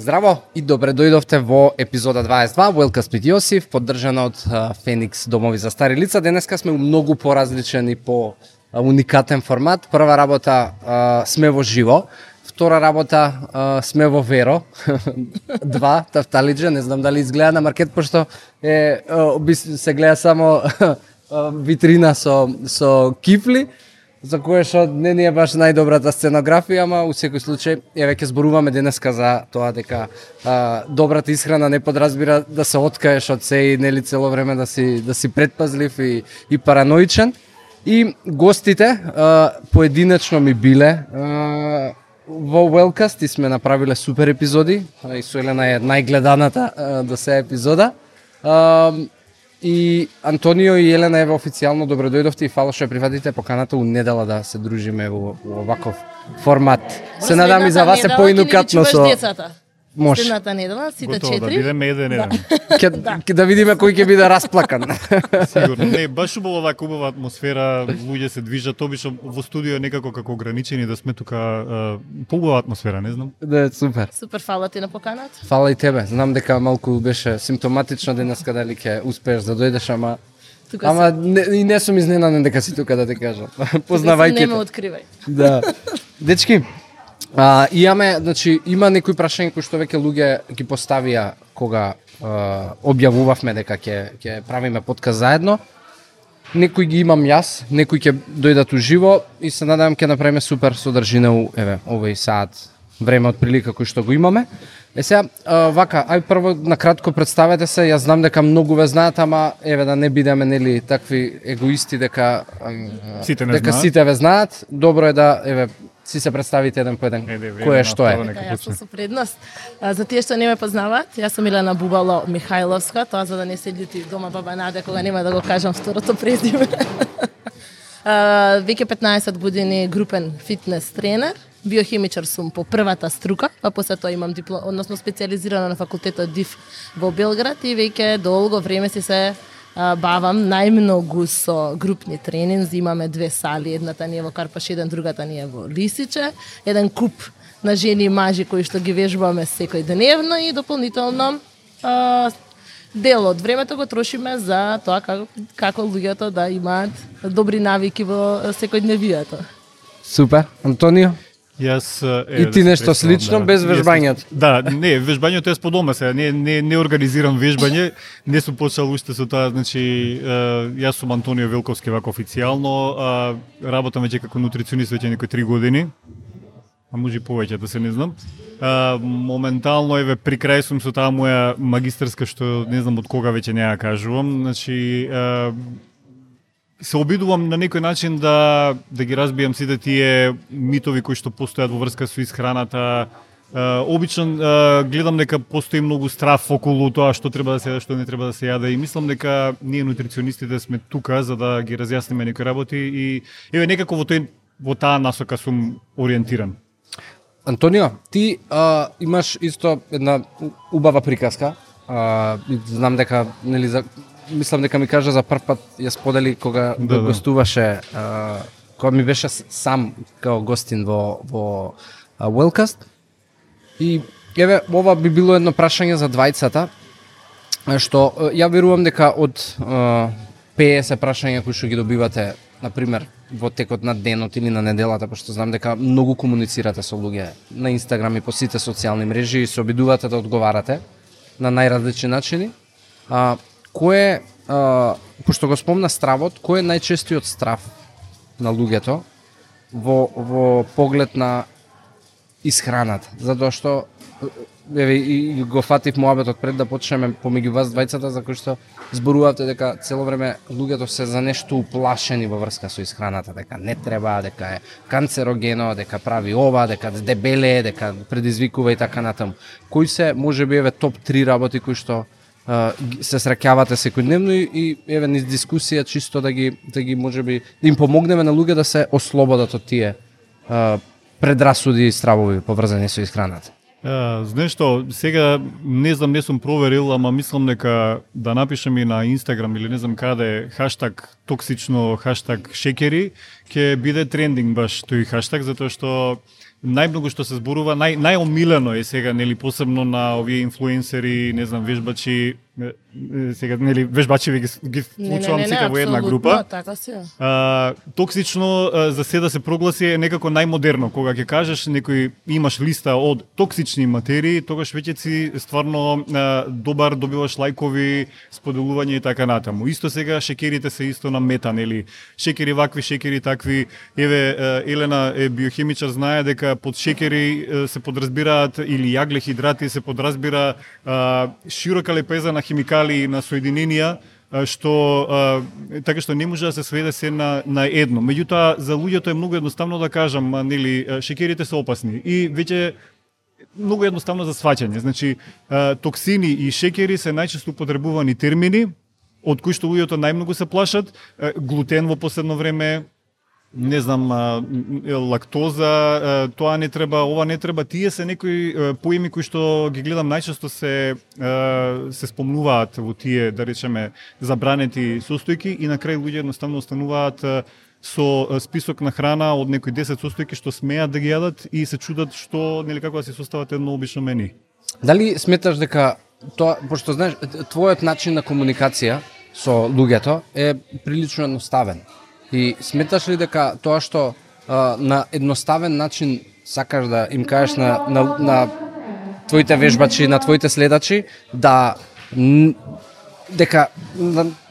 Здраво и добре дојдовте во епизода 22 Wellcast with Јосиф, поддржана од Феникс домови за стари лица. Денеска сме многу поразличен и по уникатен формат. Прва работа сме во живо, втора работа сме во Веро. Два тафталиџа, не знам дали изгледа на маркет, пошто се гледа само витрина со кифли, за кое што не ни е баш најдобрата сценографија, ама у секој случај еве ќе зборуваме денеска за тоа дека добрата исхрана не подразбира да се откаеш од се и нели цело време да си предпазлив и параноичен. И гостите поединечно ми биле во Wellcast и сме направиле супер епизоди. И со Елена е најгледаната до сега епизода. И Антонио и Елена еве официјално добро дојдовте и фала што ја прифатите поканата у недела да се дружиме во оваков формат. Се надам и за вас е поинукатно со може. Следната недела, сите 4. Готово, да бидеме еден. Ќе да видиме кој ќе биде расплакан. Сигурно. Не, баш убава оваа убава атмосфера, луѓе се движат, обично во студио е некако како ограничени да сме тука, поубава атмосфера, не знам. Да, супер. Супер, фала ти на поканата. Фала и тебе. Знам дека малку беше симптоматично денеска дали ќе успееш да дојдеш, ама не сум изненаден дека си тука, да те кажам. Познавајќи. Не ме откривај. Да. Дечки, има некои прашања кои што веќе луѓе ги поставија кога објавувавме дека ќе правиме подкаст заедно. Некои ги имам јас, некои ќе дојдат уживо и се надевам ќе направиме супер содржина овој саат време од прилика кој што го имаме. Сега, ај прво накратко представете се, јас знам дека многу ве знаат, ама еве да не бидеме нели такви егоисти дека сите ве знаат. Добро е да си се представите еден по еден кој е што е. Јас со предност. За тие што не ме познаваат, јас сум Елена Бубало Михајловска, тоа за да не се љути дома баба Наде кога нема да го кажам второто презиме. Веќе 15 години групен фитнес тренер, биохимичар сум по првата струка, па после тоа имам односно специјализирана на факултетот ДИФ во Белград и веќе долго време си се бавам најмногу со групни тренинзи. Имаме две сали, едната ни е во Карпаш 1, другата ни е во Лисиче. Еден куп на жени и мажи кои што ги вежбаме секој деневно и дополнително дел од времето го трошиме за тоа како луѓето да имаат добри навики во секојдневието. Супер. Антонио? Јас и ти нешто слично без вежбањето. Да, не, вежбањето е по дома сега, не организирам вежбање, не сум почел уште со тоа, значи јас сум Антонио Велковски вака официјално, работам веќе како нутриционист веќе некои 3 години. А може и повеќе, да се не знам. Моментално еве при крај сум со таа моја магистарска што не знам од кога веќе не ја кажувам, значи се обидувам на некој начин да ги разбијам сите тие митови кои што постојат во врска со исхраната. Обично гледам дека постои многу страф околу тоа што треба да се јаде, што не треба да се јаде и мислам дека ние нутриционистите сме тука за да ги разјасниме некои работи и еве некако во таа насока сум ориентиран. Антонио, ти имаш исто една убава приказка. Знам дека мислам дека ми кажа за прв пат ја сподели кога гостуваше, кога ми беше сам као гостин во Wellcast. И еве ова би било едно прашање за двајцата, што ја верувам дека од 50 прашања кои што ги добивате, на пример, во текот на денот или на неделата, пошто знам дека многу комуницирате со луѓе на Инстаграм и по сите социјални мрежи и се обидувате да одговарате на најразлични начини. Кој е, пошто го спомна стравот, кој е најчестиот страв на луѓето во поглед на исхраната? Затоа што еве и го фатив муабетот пред да почнеме помеѓу вас двајцата, за кој што зборувате дека цело време луѓето се за нешто уплашени во врска со исхраната, дека не треба, дека е канцерогено, дека прави ова, дека дебеле, дека предизвикува и така натаму. Кои се можеби еве топ 3 работи кои што се среќавате секојдневно и еве низ дискусија чисто да ги можеби да им помогнеме на луѓе да се ослободат од тие предрасуди и стравови поврзани со исхраната. Знаеш што, сега не знам, не сум проверил, ама мислам дека да напишем и на Инстаграм или не знам каде хаштаг токсично, хаштаг шекери, ќе биде трендинг баш тој хаштаг, затоа што најмногу што се зборува, најомилено е сега, нели, посебно на овие инфлуенсери, не знам, вежбачи, сега, нели, вежбачи ги вклучувам сите во една група. Така си. Токсично за се да се прогласи е некако најмодерно. Кога ќе кажеш некој имаш листа од токсични материи, тогаш веќе си стварно добар, добиваш лајкови, споделување и така натаму. Исто сега шекерите се исто на мета, нели? Шекери вакви, шекери такви. Еве Елена е биохимичар, знае дека под шекери се подразбираат или јаглехидрати, се подразбира широка лепеза на химикали, на соединенија, што така што не може да се сведе се на едно. Меѓутоа за луѓето е многу едноставно да кажам, нели, шекерите се опасни и веќе многу едноставно за сваќање. Значи токсини и шекери се најчесто употребувани термини од кои што луѓето најмногу се плашат. Глутен во последно време, не знам, лактоза, тоа не треба, ова не треба, тие се некои поими кои што ги гледам најчесто се спомнуваат во тие, да речеме, забранети состојки и на крај луѓе едноставно остануваат со список на храна од некои 10 состојки што смеат да ги јадат и се чудат што, нели, како да си состават едно обично мени. Дали сметаш дека тоа, пошто знаеш, твојот начин на комуникација со луѓето е прилично едноставен? И сметаш ли дека тоа што на едноставен начин сакаш да им кажеш на твоите вежбачи, на твоите следачи, дека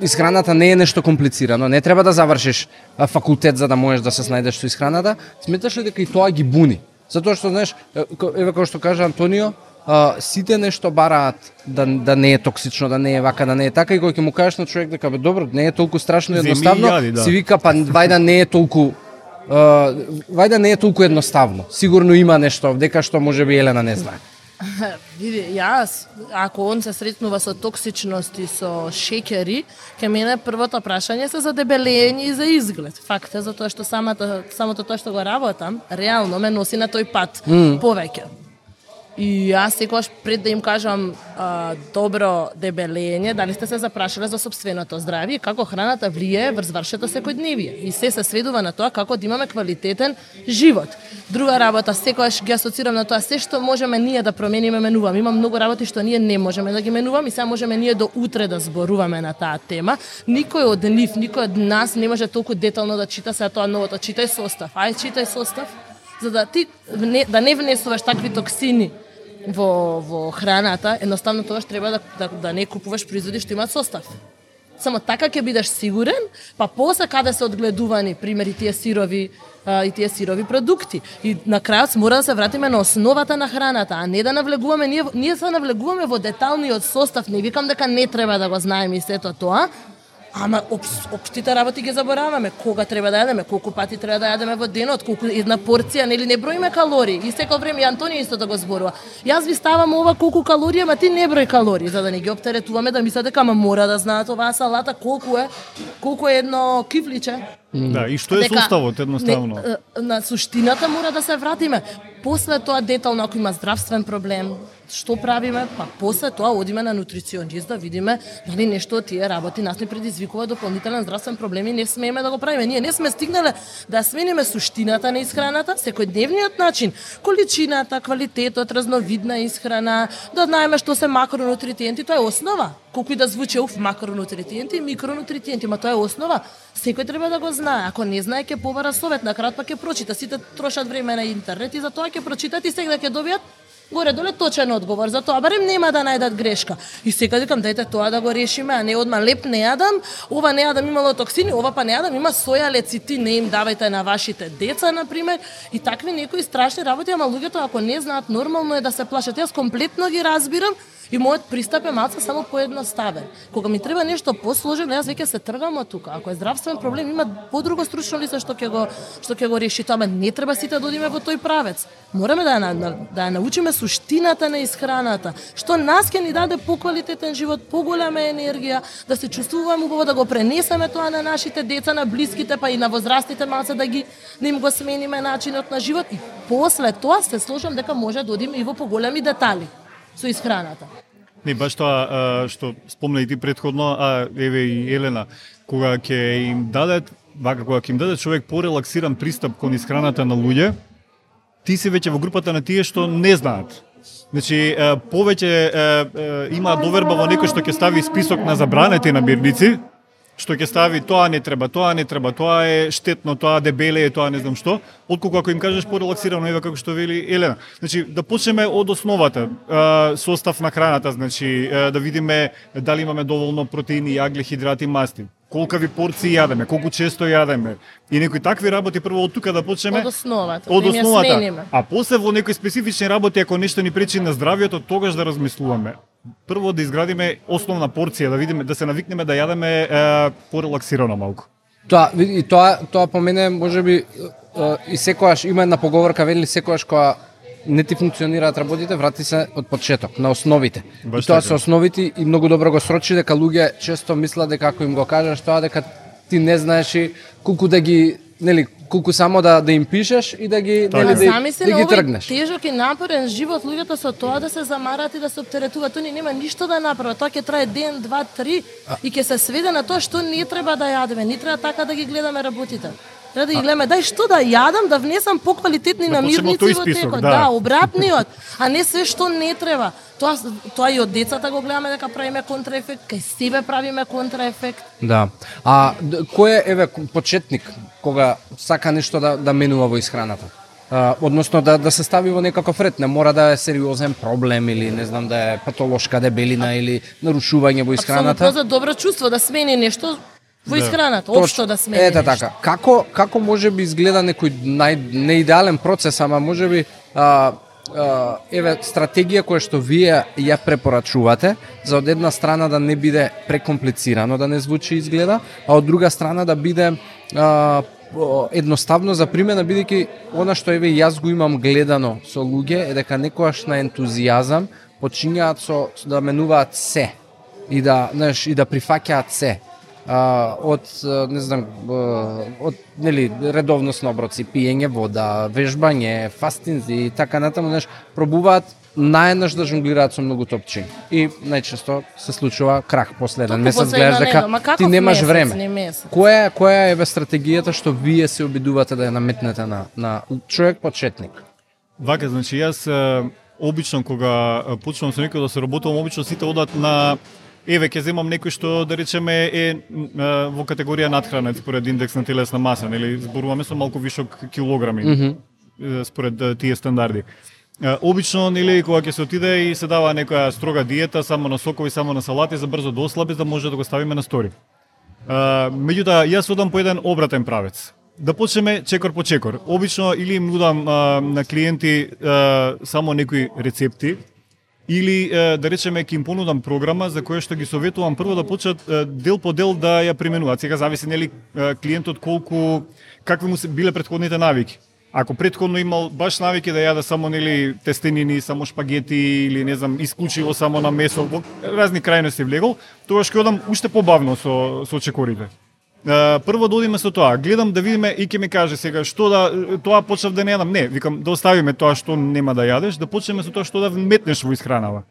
исхраната не е нешто комплицирано, не треба да завршиш факултет за да можеш да се снајдеш со исхраната, сметаш ли дека и тоа ги буни? Затоа што, знаеш, еве како што кажа Антонио, сите нешто бараат да не е токсично, да не е вака, да не е така, и кога ќе му кажеш на човек дека бе добро, не е толку страшно и едноставно, си вика па вајда не е толку едноставно. Сигурно има нешто дека што можеби Елена не знае. Види, јас, ако он се сретнува со токсичност и со шекери, ке мене првото прашање се за дебелење и за изглед. Факт е, затоа што самото тоа што го работам, реално ме носи на тој пат повеќе. И јас секогаш пред да им кажам добро дебелење, дали сте се запрашале за сопственото здравје и како храната влијае врз вашето секојдневие. И се сведува на тоа како да имаме квалитетен живот. Друга работа, секогаш ги асоцирам на тоа се што можеме ние да промениме, менуваме. Има многу работи што ние не можеме да ги менуваме и сега можеме ние до утре да зборуваме на таа тема. Никој од нив, никој од нас не може толку детално да чита сега тоа новото. Читај состав. Читај состав, за да ти да не внесуваш такви токсини во храната, едноставно тоа што треба да не купуваш производи што имаат состав. Само така ќе бидеш сигурен, па после каде се одгледувани, примери тие сирови продукти. И на крајот мора да се вратиме на основата на храната, а не да навлегуваме, ние се навлегуваме во деталниот состав, не викам дека не треба да го знаеме и сето тоа, ама општите работи ги забораваме. Кога треба да јадеме, колку пати треба да јадеме во денот, колку една порција, нели не броиме калории. И секој време и Антонио исто да го зборува. Јас ви ставам ова колку калории, ама ти не број калории, за да не ги оптеретуваме да мислат дека мора да знаат оваа салата колку е едно кифличе. Да, и што е составот едноставно? На суштината мора да се вратиме. После тоа детално ако има здравствен проблем, што правиме? Па после тоа одиме на нутриционист да видиме дали нешто од тие работи нас не предизвикува дополнителен здравствен проблем и не смееме да го правиме. Ние не сме стигнале да смениме суштината на исхраната, секојдневниот начин, количината, квалитетот, разновидна исхрана, да знаеме што се макронутриенти, тоа е основа. Колку и да звучи макронутриенти и микронутриенти, ма тоа е основа. Секој треба да го знае. Ако не знае, ќе побара совет, на крај па ќе прочита. Сите трошат време на интернет и за тоа ќе прочитат и сега ќе добијат горе-доле точен одговор за тоа, барем нема да најдат грешка. И сега викам, дајте тоа да го решиме, а не одма леп не јадам, ова не јадам имало токсини, ова па не јадам има соја лецитин, не им давајте на вашите деца, например, и такви некои страшни работи, ама луѓето ако не знаат, нормално е да се плашат. Јас комплетно ги разбирам. И мојот пристап е малку само поедноставен. Кога ми треба нешто посложено, јас веќе се тргам од тука. Ако е здравствен проблем, има подруго стручно лице што ќе го реши тоа, ама не треба сите да одиме во тој правец. Мораме да ја научиме суштината на исхраната, што нас ќе ни даде поквалитетен живот, поголема енергија, да се чувствуваме убаво, да го пренесеме тоа на нашите деца, на блиските, па и на возрастните малце да им го смениме начинот на живот и после тоа се слушам дека може да одиме и во поголеми детали со исхраната. Не, баш тоа што спомна и ти претходно, еве и Елена, кога ќе им даде човек порелаксиран пристап кон исхраната на луѓе, ти си веќе во групата на тие што не знаат. Значи, повеќе има доверба во некој што ќе стави список на забранети намирници, што ќе стави тоа не треба, тоа е штетно, тоа дебеле е, тоа не знам што, отколку ако им кажеш порелаксирано, ева како што вели Елена. Значи, да почнеме од основата, состав на храната, значи, да видиме дали имаме доволно протеини, јагле, хидрати, масти. Колкави порции јадеме, колку често јадеме. И некои такви работи прво од тука да почнеме. Од основата. А после во некои специфични работи, ако нешто ни пречи на здравието, тогаш да размислуваме. Прво да изградиме основна порција, да видиме, да се навикнеме да јадеме порелаксирано малку. Тоа по мене можеби и секогаш има една поговорка, вели секогаш кога не ти функционираат работите, врати се од почеток, на основите. Баш и тоа така. се основите и многу добро го срочи дека луѓе често мислат дека ако им го кажеш тоа дека ти не знаеш и колку да ги, нели, колку само да им пишеш и да ги, нели, да ги тргнеш. Тежок и напорен живот, луѓето со тоа да се замарат и да се оптеретуваат, тој нема ништо да направат. Тоа ќе трае ден, два, три и ќе се сведе на тоа што не треба да јадеме, не треба така да ги гледаме работите. Треба да ги гледаме, дај што да јадам, да внесам поквалитетни намирници во текот, да, обратниот, а не се што не треба. Тоа и од децата го гледаме дека правиме контраефект, кај себе правиме контраефект. Да. А кој е почетник кога сака нешто да менува во исхраната? Односно да се стави во некаков ред, не мора да е сериозен проблем или не знам да е патолошка дебелина или нарушување во исхраната. Апсолутно за добро чувство да смени нешто во исхраната, општо да смени. Ете така. Како можеби изгледа некој неидеален процес, ама можеби стратегија која што вие ја препорачувате за од една страна да не биде прекомплицирано, да не звучи изгледа, а од друга страна да биде едноставно за примена, бидејќи она што јас го имам гледано со луѓе е дека некојаш на ентузијазам почињаат да менуваат се и да прифаќаат се. Од не знам, од нели редовност на оброци, пиење вода, вежбање, фастинзи и така натаму, пробуваат наеднаш да жонглираат со многу топчиња. И најчесто се случува крах после еден месец, гледаш дека ти немаш време. Која е стратегијата што вие се обидувате да ја наметнете на човек почетник? Вака, значи јас обично кога почнувам со некој да се работувам, обично сите одат на ќе земам некој што да речеме е во категорија надхранет според индекс на телесна маса, нели зборуваме со малку вишок килограми според тие стандарди. Обично, нели, кога ќе се отиде и се дава некоја строга диета, само на сокови, само на салати, за брзо да ослаби, да може да го ставиме на стори. Меѓутоа, јас одам по еден обратен правец. Да почнеме чекор по чекор. Обично или им нудам на клиенти само некои рецепти, или да речеме ќе им понудам програма за која што ги советувам прво да почнат дел по дел да ја применуваат. Сега зависи нели клиентот какви му се биле претходните навики. Ако претходно имал баш навики да јаде само нели тестенини, само шпагети или не знам исклучиво само на месо, во разни крајности влегол, тогаш ќе одам уште побавно со чекорите. Прво да одиме со тоа, гледам да видиме и ќе ми каже сега што тоа почнав да не јадам. Не, викам да оставиме тоа што нема да јадеш, да почнеме со тоа што да вметнеш во исхранава.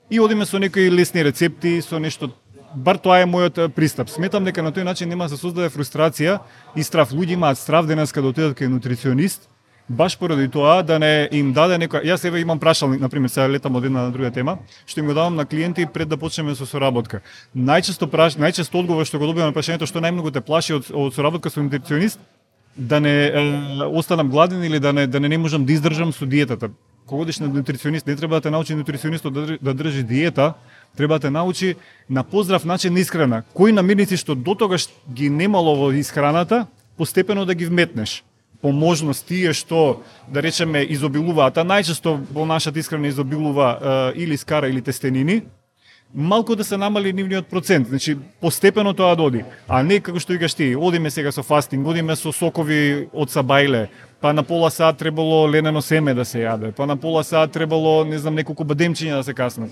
И одиме со некои лесни рецепти, со нешто. Бар тоа е мојот пристап. Сметам дека на тој начин нема да се создаде фрустрација и страв. Луѓе имаат страв денеска да отидат кај нутриционист, баш поради тоа да не им даде некоја. Јас еве имам прашалник, на пример, сега летам од една на друга тема, што им го давам на клиенти пред да почнеме со соработка. Најчесто одговор што го добивам на прашањето што најмногу те плаши од соработка со нутриционист, да не останам гладен или да не можам да издржам со диетата. Кога одиш на нутриционист, не треба да те научи нутриционистот да држи диета, треба да те научи на поздрав начин на исхрана. Кои намирници што дотогаш ги немало во исхраната, постепено да ги вметнеш. По можност тие што, да речеме, изобилуваат, а најчесто во нашата исхрана изобилува или скара или тестенини, малку да се намали нивниот процент, значи постепено тоа доди, а не како што викаш ти, одиме сега со фастинг, одиме со сокови од сабајле, па на пола сат требало ленено семе да се јаде, па на пола сат требало, не знам, неколку бадемчиња да се каснат.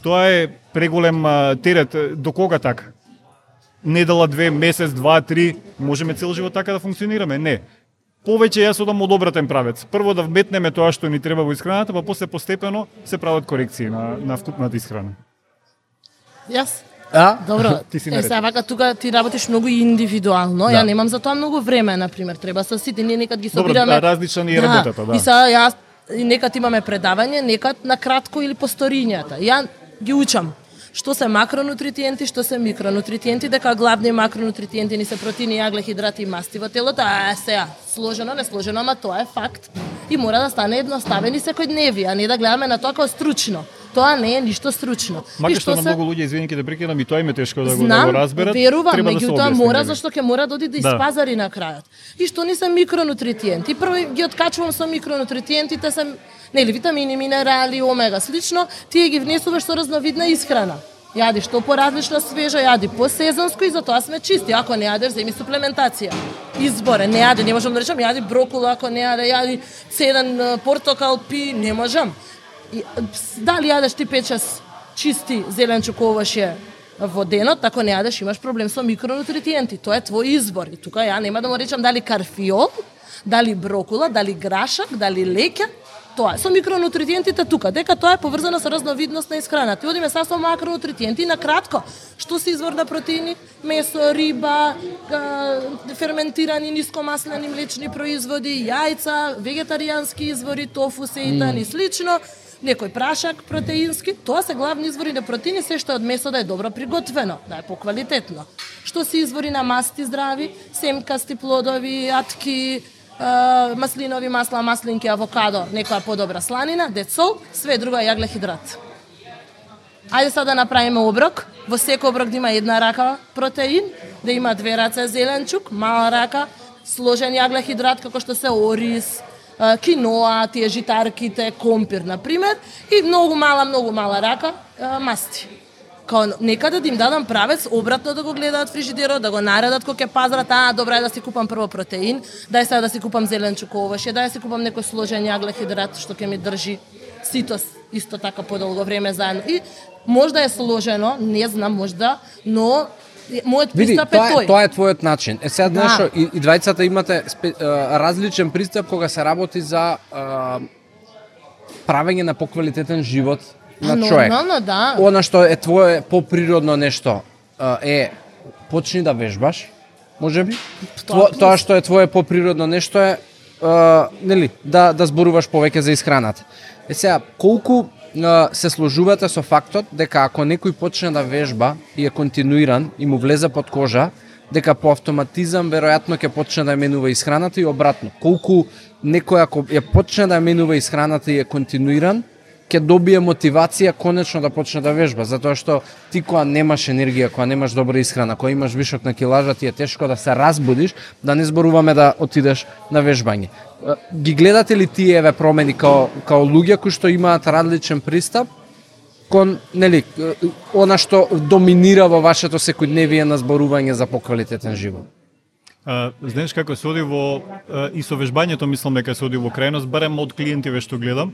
Тоа е преголем терет, до кога така? Недела, 2, месец, 2, 3, можеме цел живот така да функционираме? Не. Повеќе јас одам од обратен правец. Прво да вметнеме тоа што ни треба во исхраната, па после постепено се прават корекции на вкупната исхрана. Јас Добро, Ти си наред. сега вака тука ти работиш многу индивидуално, Да. ја немам за тоа многу време, например, треба со сите, ние некад ги собираме. Добро, различна ни е работата, да. И сега јас и некад имаме предавање, некад на кратко или по сторињата. Ја ги учам што се макронутриенти, што се микронутриенти, дека главни макронутриенти ни се протеини, јаглехидрати и масти во телото, а сега сложено, не сложено, ама тоа е факт и мора да стане едноставен и секојдневни, а не да гледаме на тоа како стручно. Тоа не е ништо стручно. Макар што на многу луѓе, извини ке да прекинам, и тоа им е тешко да го разберат. Верувам, треба да се меѓутоа објасни, мора, нели? зашто ќе мора да оди да испазари на крајот. И што ни се микронутриенти? Прво ги откачувам со микронутриентите, се нели витамини, минерали, омега, слично, тие ги внесуваш со разновидна исхрана. Јади што поразлично свежо, јади посезонско и затоа сме чисти. Ако не јадеш, земи суплементација. Изборе, не јади, не можам да речам, јади брокула, ако не јади цеден портокал, пи, не можам. И, дали јадеш ти 5-6 чисти зеленчук овоше во денот, ако не јадеш имаш проблем со микронутриенти. Тоа е твој избор. И тука ја нема да му речам дали карфиол, дали брокула, дали грашак, дали леќа. Тоа со микронутриентите тука, дека тоа е поврзано со разновидност на исхрана. Ти одиме са со макронутриенти на кратко. Што се извор на протеини? Месо, риба, ферментирани нискомаслени млечни производи, јајца, вегетаријански извори, тофу, сејтан и слично. Некој прашак протеински, тоа се главни извори на протеини, се што е од месо да е добро приготвено, да е поквалитетно. Што се извори на масти здрави, семкасти плодови, атки, маслинови масла, маслинки, авокадо, некоја подобра сланина, децол, све друго е јаглехидрат. Ајде сега да направиме оброк, во секој оброк да има една рака протеин, да има 2 раце зеленчук, мала рака, сложен јаглехидрат како што се ориз, киноа, тие житарките, компир, например, и многу мала рака масти. Као некаде да им дадам правец, обратно да го гледаат фрижидерот, да го наредат кога ќе пазарат, добра е да си купам прво протеин, дај сега да си купам зеленчук овоше, дај да си купам некој сложен јаглехидрат што ќе ми држи ситос исто така подолго време заедно. И можда е сложено, не знам, можда, но мојот пристап е тој. Тоа е твојот начин. Сега знаеш, и двајцата имате различен пристап кога се работи за правење на поквалитетен живот на човек. Нормално, да. Она што е твое поприродно нешто е почни да вежбаш, можеби. Тоа што е твое поприродно нешто е нели да зборуваш повеќе за исхраната. Сега колку се сложувате со фактот дека ако некој почне да вежба и е континуиран и му влезе под кожа, дека по автоматизам веројатно ќе почне да ја менува исхраната и обратно. Колку некој ако ја почне да ја менува исхраната и е континуиран, ќе добие мотивација конечно да почне да вежба, затоа што ти кога немаш енергија, кога немаш добра исхрана, кога имаш вишок на килажа, ти е тешко да се разбудиш, да не зборуваме да отидеш на вежбање. Ги гледате ли тие еве промени као луѓе кои што имаат различен пристап кон нели она што доминира во вашето секојдневие на зборување за поквалитетен живот? Знаеш како се оди во и со вежбањето мислам дека се оди во крајност, барем од клиентиве што гледам.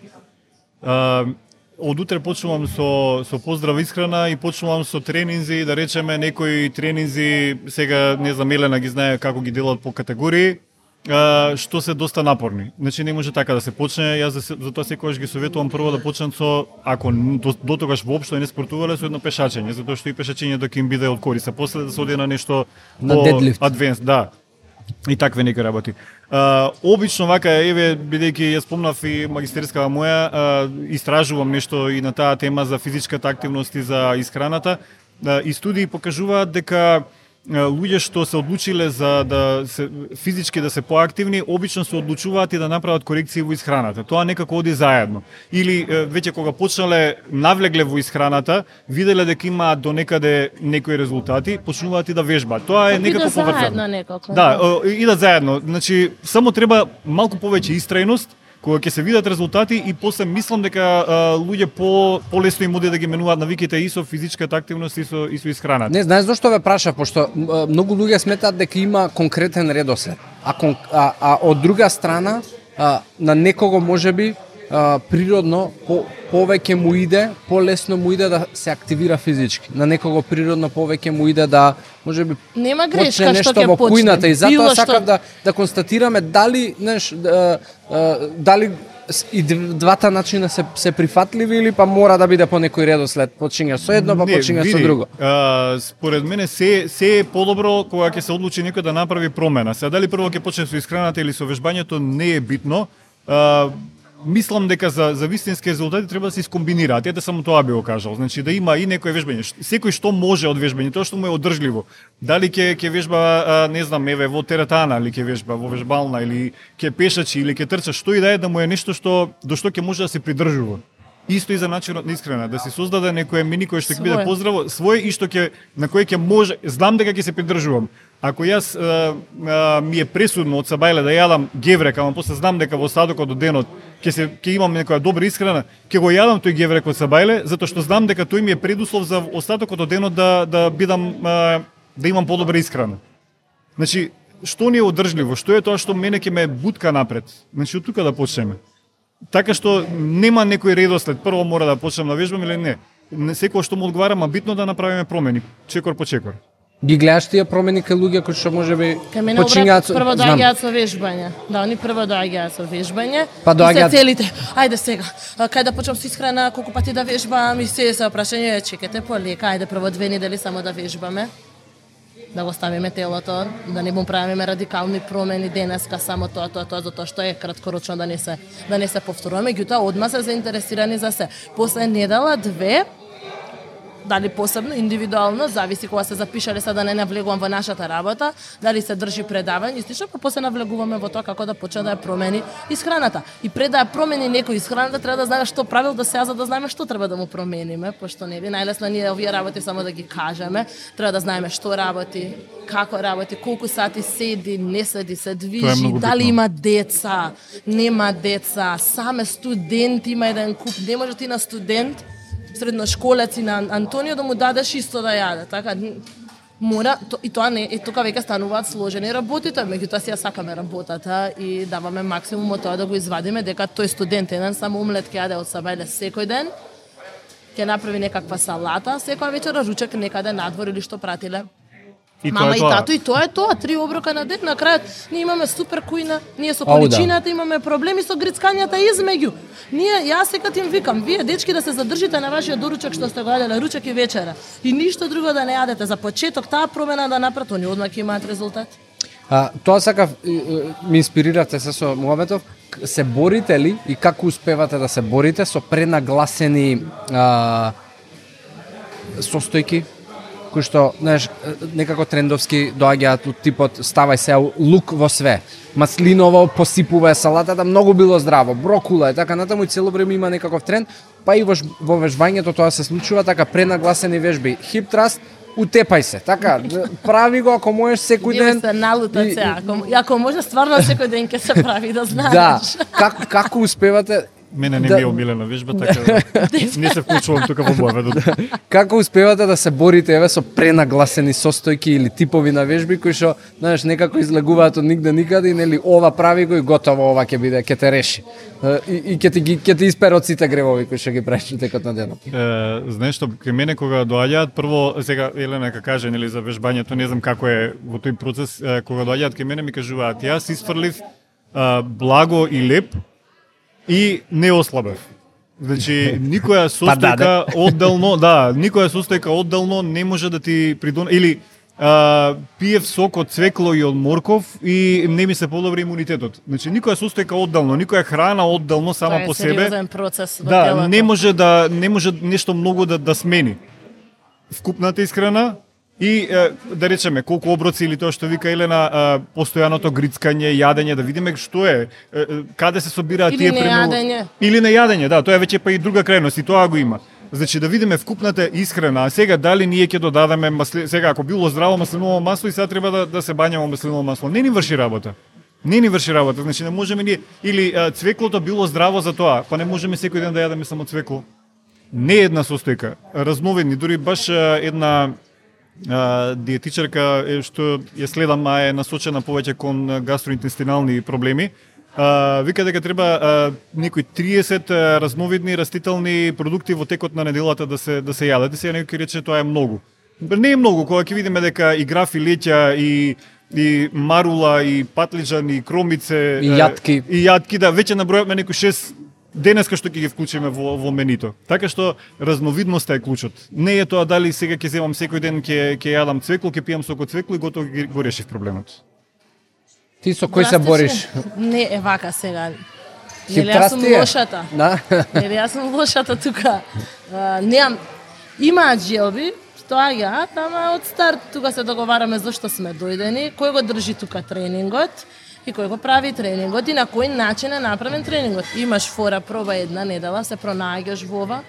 Од утре почнувам со поздрав исхрана и почнувам со тренинзи, да речеме некои тренинзи, сега не знам Елена ги знае како ги делат по категории, што се доста напорни. Значи не може така да се почне, јас затоа секогаш ги советувам прво да почнат со, ако до тогаш воопшто не спортувале, со едно пешачење, затоа што и пешачењето ќе им биде од корист, а после да се оди на нешто на дедлифт. Адвенс, да. И такве некои работи. Обично вака, еве, бидејќи ја спомнав и магистерскава моја, истражувам нешто и на таа тема за физичката активност и за исхраната, и студии покажуваат дека луѓе што се одлучиле за да се физички да се поактивни, обично се одлучуваат и да направат корекции во исхраната. Тоа некако оди заедно. Или веќе кога почнале навлегле во исхраната, виделе дека имаат до некаде некои резултати, почнуваат и да вежбаат. Тоа е некако поврзано. Да, идат заедно. Значи само треба малку повеќе истрајност кога ќе се видат резултати и после мислам дека луѓе полесно им оди да ги менуваат навиките и со физичката активност и со исхраната. Не знаеш зошто ве праша, пошто многу луѓе сметаат дека има конкретен редослед. А од друга страна на некого можеби природно повеќе му иде, полесно му иде да се активира физички. На некого природно повеќе му иде да можеби нема грешка нешто што ќе во кујната почне. И затоа сакам да констатираме дали дали и двата начина се прифатливи или па мора да биде по некој редослед, почињаш со едно, па почињаш со друго? Според мене се е подобро кога ќе се одлучи некој да направи промена. Сега дали прво ќе почне со исхраната или со вежбањето не е битно. Мислам дека за вистински резултати треба да се искомбинираат. Ете само тоа би го кажал. Значи да има и некој вежбање. Секој што може од вежбање, тоа што му е одржливо. Дали ќе вежба, не знам, еве во теретана или ќе вежба во вежбална или ќе пешачи или ќе трча, што и да му е нешто до што ќе може да се придржува. Исто и за начинот на исхрана, да се создаде некое меню кое што ќе биде поздраво, свое и што на кое ќе може, знам дека ќе се придржувам. Ако јас ми е пресудно од сабајле да јадам геврек, ама после знам дека во остатокот од денот ќе имам некоја добра исхрана, ќе го јадам тој геврек од сабајле, затоа што знам дека тој ми е предуслов за остатокот од денот да имам подобра исхрана. Значи, што ни е одржливо, што е тоа што мене ќе ме бутка напред. Значи, од тука да почнеме. Така што нема некој редослед, прво мора да почнем да вежбам или не. Секој што му одговара, ма битно да направиме промени, чекор по чекор. Ги гледаш тие промени кај луѓе кои што можеби почињаат прво доаѓаат со вежбање. Да, они прво доаѓаат со вежбање. Па доаѓаат целите. Ајде сега. Кај да почнам со исхрана, колку пати да вежбам и се прашање, чекате полека, ајде прво 2 недели само да вежбаме. Да го ставиме телото, да не му правиме радикални промени денеска, само тоа, затоа што е краткорочно да не се повторува. Меѓутоа, одма се заинтересирани за се. После недела, 2, дали посебно, индивидуално, зависи кога се запишале, да не навлегувам во нашата работа, дали се држи предавање, слично, па после навлегуваме во тоа како да почне да ја промени исхраната. И пред да ја промени некој исхраната, треба да знаеме што правил до сега, за да знаеме што треба да му промениме, пошто нели најлесно ние овие работи само да ги кажеме, треба да знаеме што работи, како работи, колку сати седи, не седи, се движи, дали има деца, нема деца, саме студент има еден куп, не може ти на студент средношколец и на Антонио да му дадеш исто да јаде, така мора и тоа не и тука веќе стануваат сложени работите, меѓутоа си ја сакаме работата и даваме максимум од тоа да го извадиме дека тој студент еден само омлет ќе јаде од сабајле секој ден, ќе направи некаква салата, секоја вечера ручек некаде надвор или што пратиле. Мама и тато, и тоа е тоа, 3 оброка на ден, на крајот ние имаме супер кујна, ние со количината имаме проблеми со грицкањата измеѓу. Јас секад им викам, вие дечки да се задржите на вашиот доручек што сте го јаделе ручек и вечера и ништо друго да не јадете. За почеток таа промена да направат, они одма ќе имаат резултат. Тоа сакав, ми инспирирате се со муабетов, се борите ли и како успевате да се борите со пренагласени состојки? Кои што, знаеш, некако трендовски доаѓаат од типот ставај се лук во све. Маслиново посипува салатата, многу било здраво, брокула и така натаму и цело време има некаков тренд, па и во вежбањето тоа се случува, така пренагласени вежби. Хип траст, утепај се, така, прави го ако можеш секој ден. Се налутат се, ако може стварно секој ден ќе се прави, да знаеш. Да, како успевате? Мене не ми е омилена вежба, така не се вклучувам тука во муабетот. Како успевате да се борите еве со пренагласени состојки или типови на вежби кои што, знаеш, некако излегуваат од нигде никаде и нели ова прави го и готово, ова ќе те реши. И ќе ти испере од сите гревови кои што ги правиш во текот на денот. Знаеш што, кај мене кога доаѓаат, прво сега Елена ка каже нели за вежбањето, не знам како е во тој процес, кога доаѓаат кај мене ми кажуваат, јас isfрлив благо и леп и не ослабев. Значи, никоја состојка одделно, никоја состојка одделно не може да ти придонесе, или пиев сок од цвекло и од морков и не ми се подобри имунитетот. Значи, никоја состојка одделно, никоја храна одделно сама по себе. Тоа е сериозен процес во телото. Не може нешто многу да смени. Вкупната исхрана и да речеме колку оброци или тоа што вика Елена, постојаното грицкање, јадење, да видиме што е, каде се собираат тие нејадење. Или нејадење, да, тоа е веќе па и друга крајност и тоа го има. Значи да видиме вкупната исхрана, а сега дали ние ќе додадеме сега ако било здраво маслиново масло и сега треба да се бањаме маслиново масло, не ни врши работа. Не ни врши работа, значи не можеме ние или цвеклото било здраво за тоа, па не можеме секој ден да јадеме само цвекло. Не една состојка, разновидни, дури баш една диетичарка што ја следам, е насочена повеќе кон гастроинтестинални проблеми. Вика дека треба некои 30 разновидни растителни продукти во текот на неделата да се јадат. Сега некој ќе рече тоа е многу. Не е многу, кога ќе видиме дека и граф и леќа и и марула, и патлиџан, и кромице, И јатки. И јатки, да, веќе набројавме некои 6 денеска што ќе ги вклучиме во менито. Така што разновидноста е клучот. Не е тоа дали сега ќе земам секој ден ќе јадам цвекло, ќе пијам сок од цвекло и готово го решив проблемот. Ти со кој се бориш? Не, е вака сега. Нели јас сум лошата. Да. Нели јас сум лошата тука. Немам, имаат желби, доаѓаат, ама од старт тука се договараме зашто сме дојдени, кој го држи тука тренингот и кој го прави тренингот и на кој начин е направен тренингот. Имаш фора, проба една недела, се пронаѓаш во ова,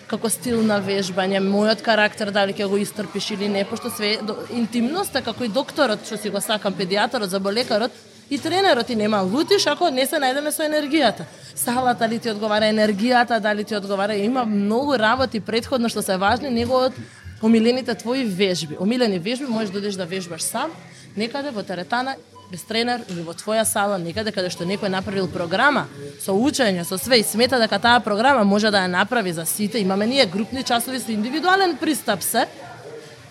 како стил на вежбање, мојот карактер, дали ќе го истрпиш или не, пошто све интимноста, како и докторот, што си го сакам, педијатарот, заболекарот, и тренерот, и нема лутиш ако не се најдеме со енергијата. Салата ли ти одговара, енергијата дали ти одговара, има многу работи претходно што се важни, него од омилените твои вежби. Омилени вежби можеш да одиш да вежбаш сам, некаде во теретана, без тренер или во твоја сала, некаде каде што некој направил програма со учење, со све и смета дека таа програма може да ја направи за сите. Имаме ние групни часови со индивидуален пристап се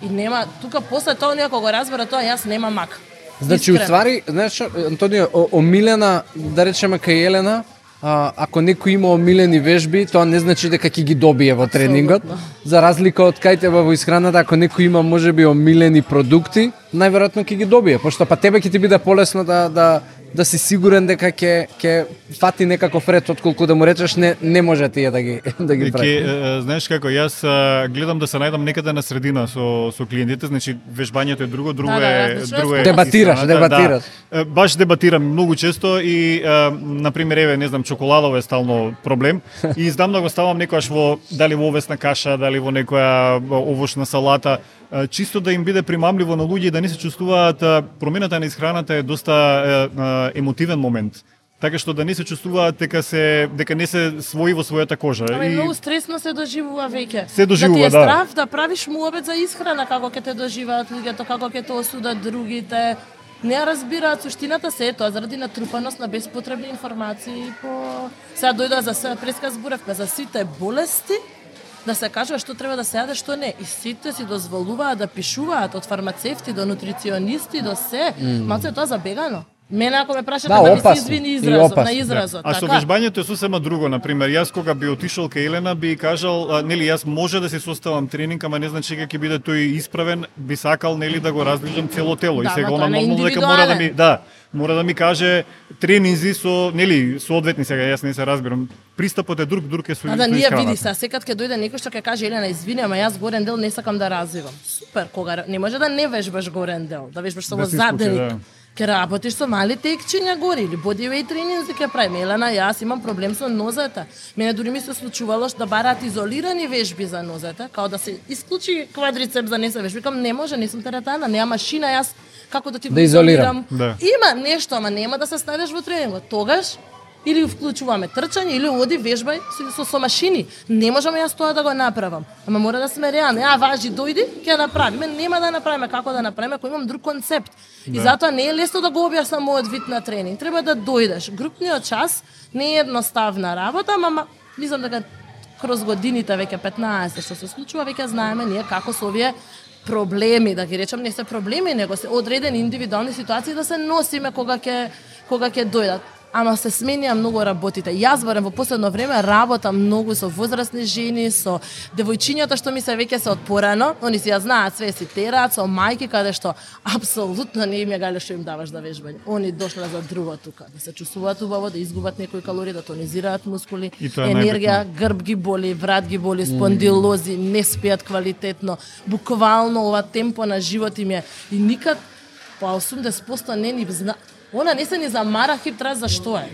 и нема тука после тоа некој го разбера тоа, јас нема мак. Значи, уствари, знаеш, Антонио, омилена, да речеме кај Елена, ако некој има омилени вежби, тоа не значи дека ќе ги добие во тренингот. За разлика од кај тебе во исхраната, ако некој има можеби омилени продукти, најверојатно ќе ги добие, пошто па тебе ќе ти биде полесно да си сигурен дека ќе фати некаков ред, отколку да му речеш не може тие да ги прави. Знаеш како, јас гледам да се најдам некаде на средина со клиентите, значи вежбањето е друго е дебатираш. Да, баш дебатирам многу често и на пример еве не знам чоколадово е стално проблем и издамна го ставам некојаш во дали во овесна каша, дали во некоја овошна салата, чисто да им биде примамливо на луѓе и да не се чувствуваат. Промената на исхраната е доста емотивен момент. Така што да не се чувствуваат дека не се свои во својата кожа. Ама многу стресно се доживува веќе. Се доживува, да. Ти е страв да правиш муабет за исхрана, како ќе те доживеат луѓето, како ќе те осудат другите. Не разбираат суштината се тоа заради натрупаност на беспотребни информации сега дојдоа за се преска зборевме за сите болести, да се кажува што треба да се јаде, што не. И сите си дозволуваат да пишуваат од фармацевти до нутриционисти до се. Малце тоа забегано. Мене ако ме прашате да ми се извини изразот. А со вежбањето е сосема друго, на пример, јас кога би отишол кај Елена би кажал, нели јас може да се составам тренинг, ама не значи дека ќе биде тој исправен, би сакал нели да го раздвижам цело тело и сега она нормално дека мора да ми каже тренинзи со нели соодветни, сега јас не се разбирам. Пристапот е друг е со да ние види секад ќе дојде некој што ќе каже Елена извини, ама јас горен дел не сакам да развивам. Супер, кога не може да не вежбаш горен дел, да вежбаш само задник. Ке работиш со мали текчиња гори или бодивејт тренинзи ќе правиме. Елена, јас имам проблем со нозете. Мене дури ми се случувало да бараат изолирани вежби за нозете, као да се исклучи квадрицепс за не се вежби. Кам не може, не сум теретана, нема машина, јас како да ти го изолирам. Да. Има нешто, ама нема да се ставиш во тренингот. Тогаш или вклучуваме трчање, или оди вежбај со машини. Не можеме јас тоа да го направам. Ама мора да сме реални. Важи, дојди, ќе направиме. Нема да направиме како да направиме, ако имам друг концепт. И затоа не е лесно да го објаснам мојот вид на тренинг. Треба да дојдеш. Групниот час не е едноставна работа, ама мислам дека кроз годините веќе 15 што се случува, веќе знаеме ние како со овие проблеми, да ги речам, не се проблеми, него се одредени индивидуални ситуации да се носиме кога ќе дојдат. Ама се сменија многу работите. Јас барем во последно време работам многу со возрастни жени, со девојчињата што ми се веќе се од порано, они си ја знаат све, си тераат, со мајки каде што апсолутно не им ја гале што им даваш да вежбање. Они дошле за друго тука, да се чувствуваат убаво, да изгубат некои калории, да тонизираат мускули, енергија, грб ги боли, врат ги боли, спондилози, не спијат квалитетно. Буквално ова темпо на живот им е и никад по 80% не ни зна. Она не се ни замара хиптра за што е.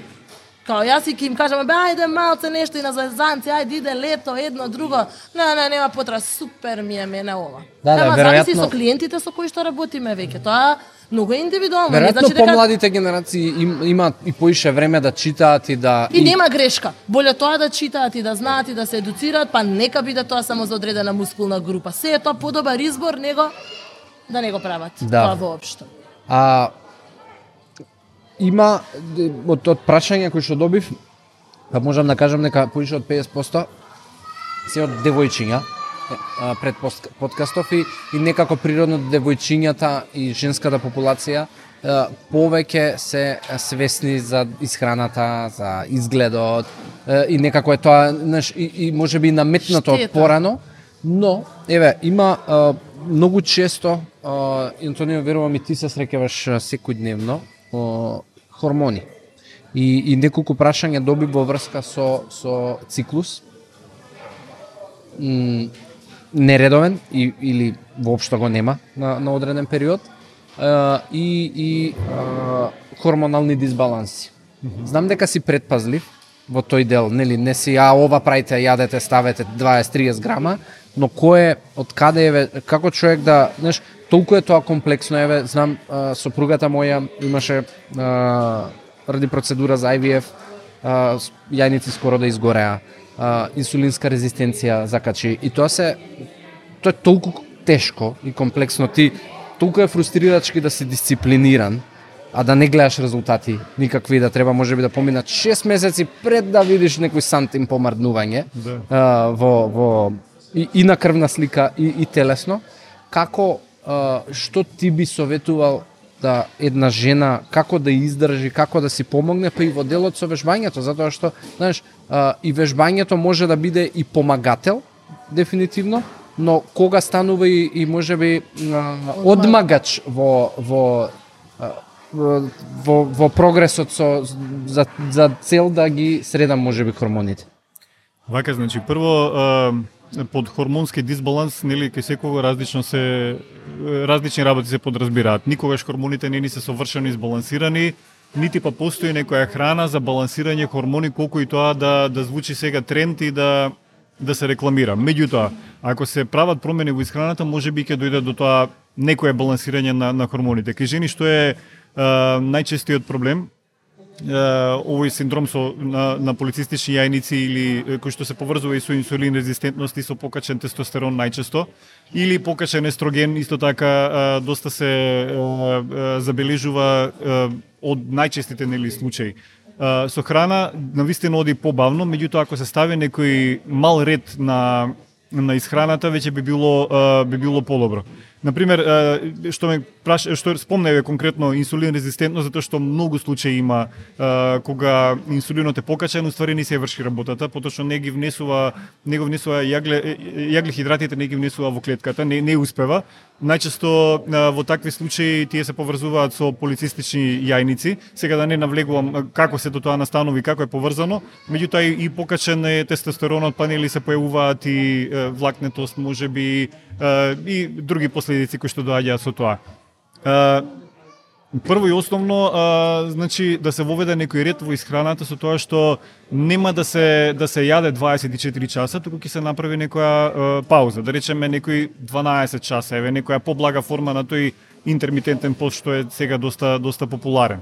Као јас и ќе им кажам, ајде малце нешто и на зvezdanци, ајде иде лето, едно, друго. Не, нема потреба, супер ми е мене ова. Ама зависи со клиентите со кои што работиме веќе. Тоа многу е индивидуално. Веројатно помладите генерации имаат и поише време да читаат и да... И нема грешка. Боле тоа да читаат и да знаат и да се едуцираат, па нека биде тоа само за одредена мускулна група. Се е тоа подобар избор, него да не го прават. Тоа воопшто. Има од прашања кои што добив, па можам да кажам дека поише од 50% се од девојчиња. пред подкастов и некако природно девојчињата и женската популација повеќе се свесни за исхраната, за изгледот и некако е тоа, знаеш, и можеби наметнато од порано, но еве има многу често Антонио, верувам и ти се среќаваш секојдневно хормони. И неколку прашања доби во врска со циклус нередовен или воопшто го нема на одреден период и хормонални дисбаланси. Знам дека си предпазлив во тој дел, нели, не си ова правите, јадете, ставете 20-30 грама, но кој од каде еве, како човек да, знаеш, толку е тоа комплексно, еве, знам, сопругата моја имаше ради процедура за IVF, јајници скоро да изгореа, инсулинска резистенција закачи и тоа е толку тешко и комплексно, ти толку е фрустрирачки да си дисциплиниран, а да не гледаш резултати никакви, да треба можеби да поминат 6 месеци пред да видиш некој сантим помрднување и на крвна слика и телесно. Како, што ти би советувал да една жена, како да издржи, како да си помогне, па и во делот со вежбањето, затоа што, знаеш, и вежбањето може да биде и помагател, дефинитивно, но кога станува и можеби одмагач во прогресот за цел да ги средам можеби хормоните. Вака, значи, прво под хормонски дисбаланс, нели, кај секого различни работи се подразбираат. Никогаш хормоните не ни се совршено избалансирани, нити па постои некоја храна за балансирање хормони, колку и тоа да звучи сега тренд и да се рекламира. Меѓутоа, ако се прават промени во исхраната, можеби ќе дојде до тоа некое балансирање на хормоните. Кај жени што е најчестиот проблем, овој синдром на полицистични јајници или кој што се поврзува и со инсулин резистентност и со покачен тестостерон најчесто, или покачен естроген, исто така доста се забележува од најчестите, нели, случаи. Со храна навистина оди побавно, меѓутоа ако се стави некој мал ред на исхраната, веќе би било подобро. Например, што спомневе конкретно инсулин резистентно, затоа што многу случаи има кога инсулинот е покачен, уствари не се врши работата, поточно не го внесува јаглехидратите, не ги внесува во клетката, не успева. Најчесто во такви случаи тие се поврзуваат со полицистични јајници. Сега да не навлегувам како се до тоа настанови, како е поврзано, меѓутоа и покачен е тестостеронот, па нели се појавуваат и влакнетост, можеби и други последици кои што доаѓаат со тоа. Прво и основно, значи да се воведе некој ред во исхраната со тоа што нема да се јаде 24 часа, туку ќе се направи некоја пауза, да речеме некои 12 часа, еве некоја поблага форма на тој интермитентен пост што е сега доста популарен.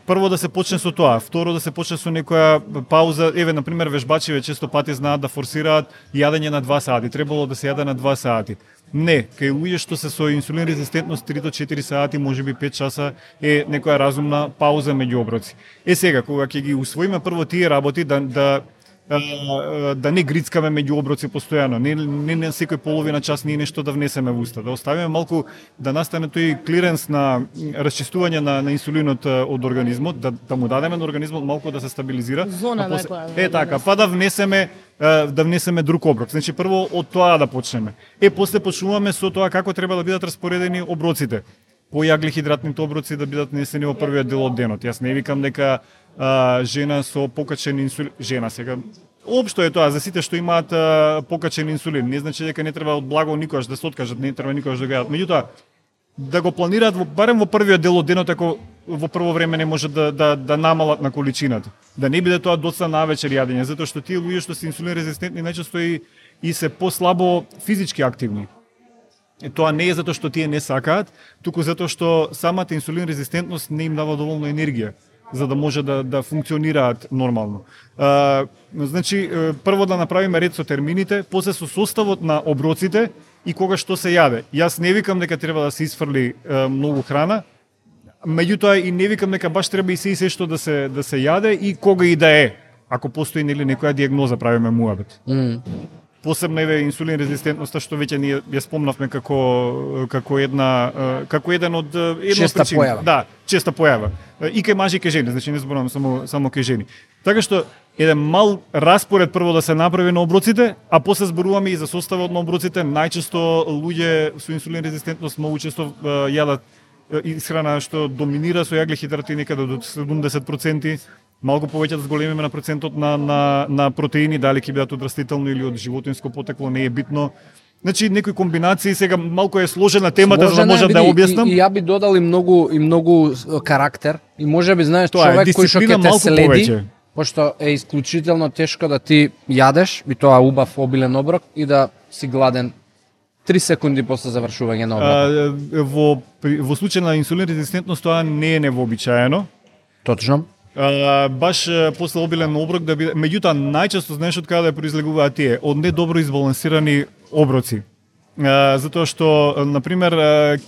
Прво да се почне со тоа, второ да се почне со некоја пауза, еве на пример вежбачиве често пати знаат да форсираат јадење на 2 сати, требало да се јаде на 2 сати. Не, кај луѓе што се со инсулин резистентност 3 до 4 сати, можеби 5 часа е некоја разумна пауза меѓу оброци. Сега кога ќе ги усвоиме прво тие работи да не грицкаме меѓу оброци постојано, не секој половина час ние нешто да внесеме во уста, да оставиме малку да настане тој клиренс на расчистување на инсулинот од организмот, да му дадеме на организмот малку да се стабилизира. Зона некоја. Така, па да внесеме друг оброк. Значи прво од тоа да почнеме. После почнуваме со тоа како треба да бидат распоредени оброците. По јаглехидратните оброци да бидат внесени во првиот дел од денот. Јас не викам дека жена со покачен инсулин, жена сега, општо е тоа, за сите што имаат покачен инсулин, не значи дека не треба од благо никогаш да се откажат, не треба никогаш да го јадат. Меѓутоа, да го планираат барем во првиот дел од денот, ако во прво време не може да намалат на количината. Да не биде тоа доцна навечер јадење, затоа што тие луѓе што се инсулин резистентни најчесто и се послабо физички активни. Тоа не е затоа што тие не сакаат, туку затоа што самата инсулин резистентност не им дава доволно енергија за да може да функционираат нормално. Значи, прво да направиме ред со термините, после со составот на оброците и кога што се јаде. Јас не викам дека треба да се изфрли многу храна, меѓутоа и не викам дека баш треба и се што да се јаде и кога и да е, ако постои нели некоја дијагноза, правиме муабет. посебно еве инсулин резистентноста што веќе ние ја спомнавме како еден од честа појава. Да, честа појава. И кај мажи и кај жени, значи не зборувам само кај жени. Така што еден мал распоред прво да се направи на оброците, а после зборуваме и за составот на оброците. Најчесто луѓе со инсулин резистентност многу често јадат исхрана што доминира со јаглехидрати некаде до 70%, малку повеќе да зголемиме на процентот на протеини, дали ќе бидат од растително или од животинско потекло, не е битно. Значи некои комбинации, сега малку е сложена темата, за да можам да ја објаснам. И ја би додал и многу карактер и можеби знаеш човек кој што ќе те следи, повеќе. Пошто е исклучително тешко да ти јадеш и тоа убав обилен оброк и да си гладен 3 секунди после завршување на оброкот. Во случај на инсулин резистентност тоа не е невообичаено. Точно. Баш после обилен оброк да биде, меѓутоа најчесто знаеш од каде произлегуваат тие, од недобро избалансирани оброци. Затоа што на пример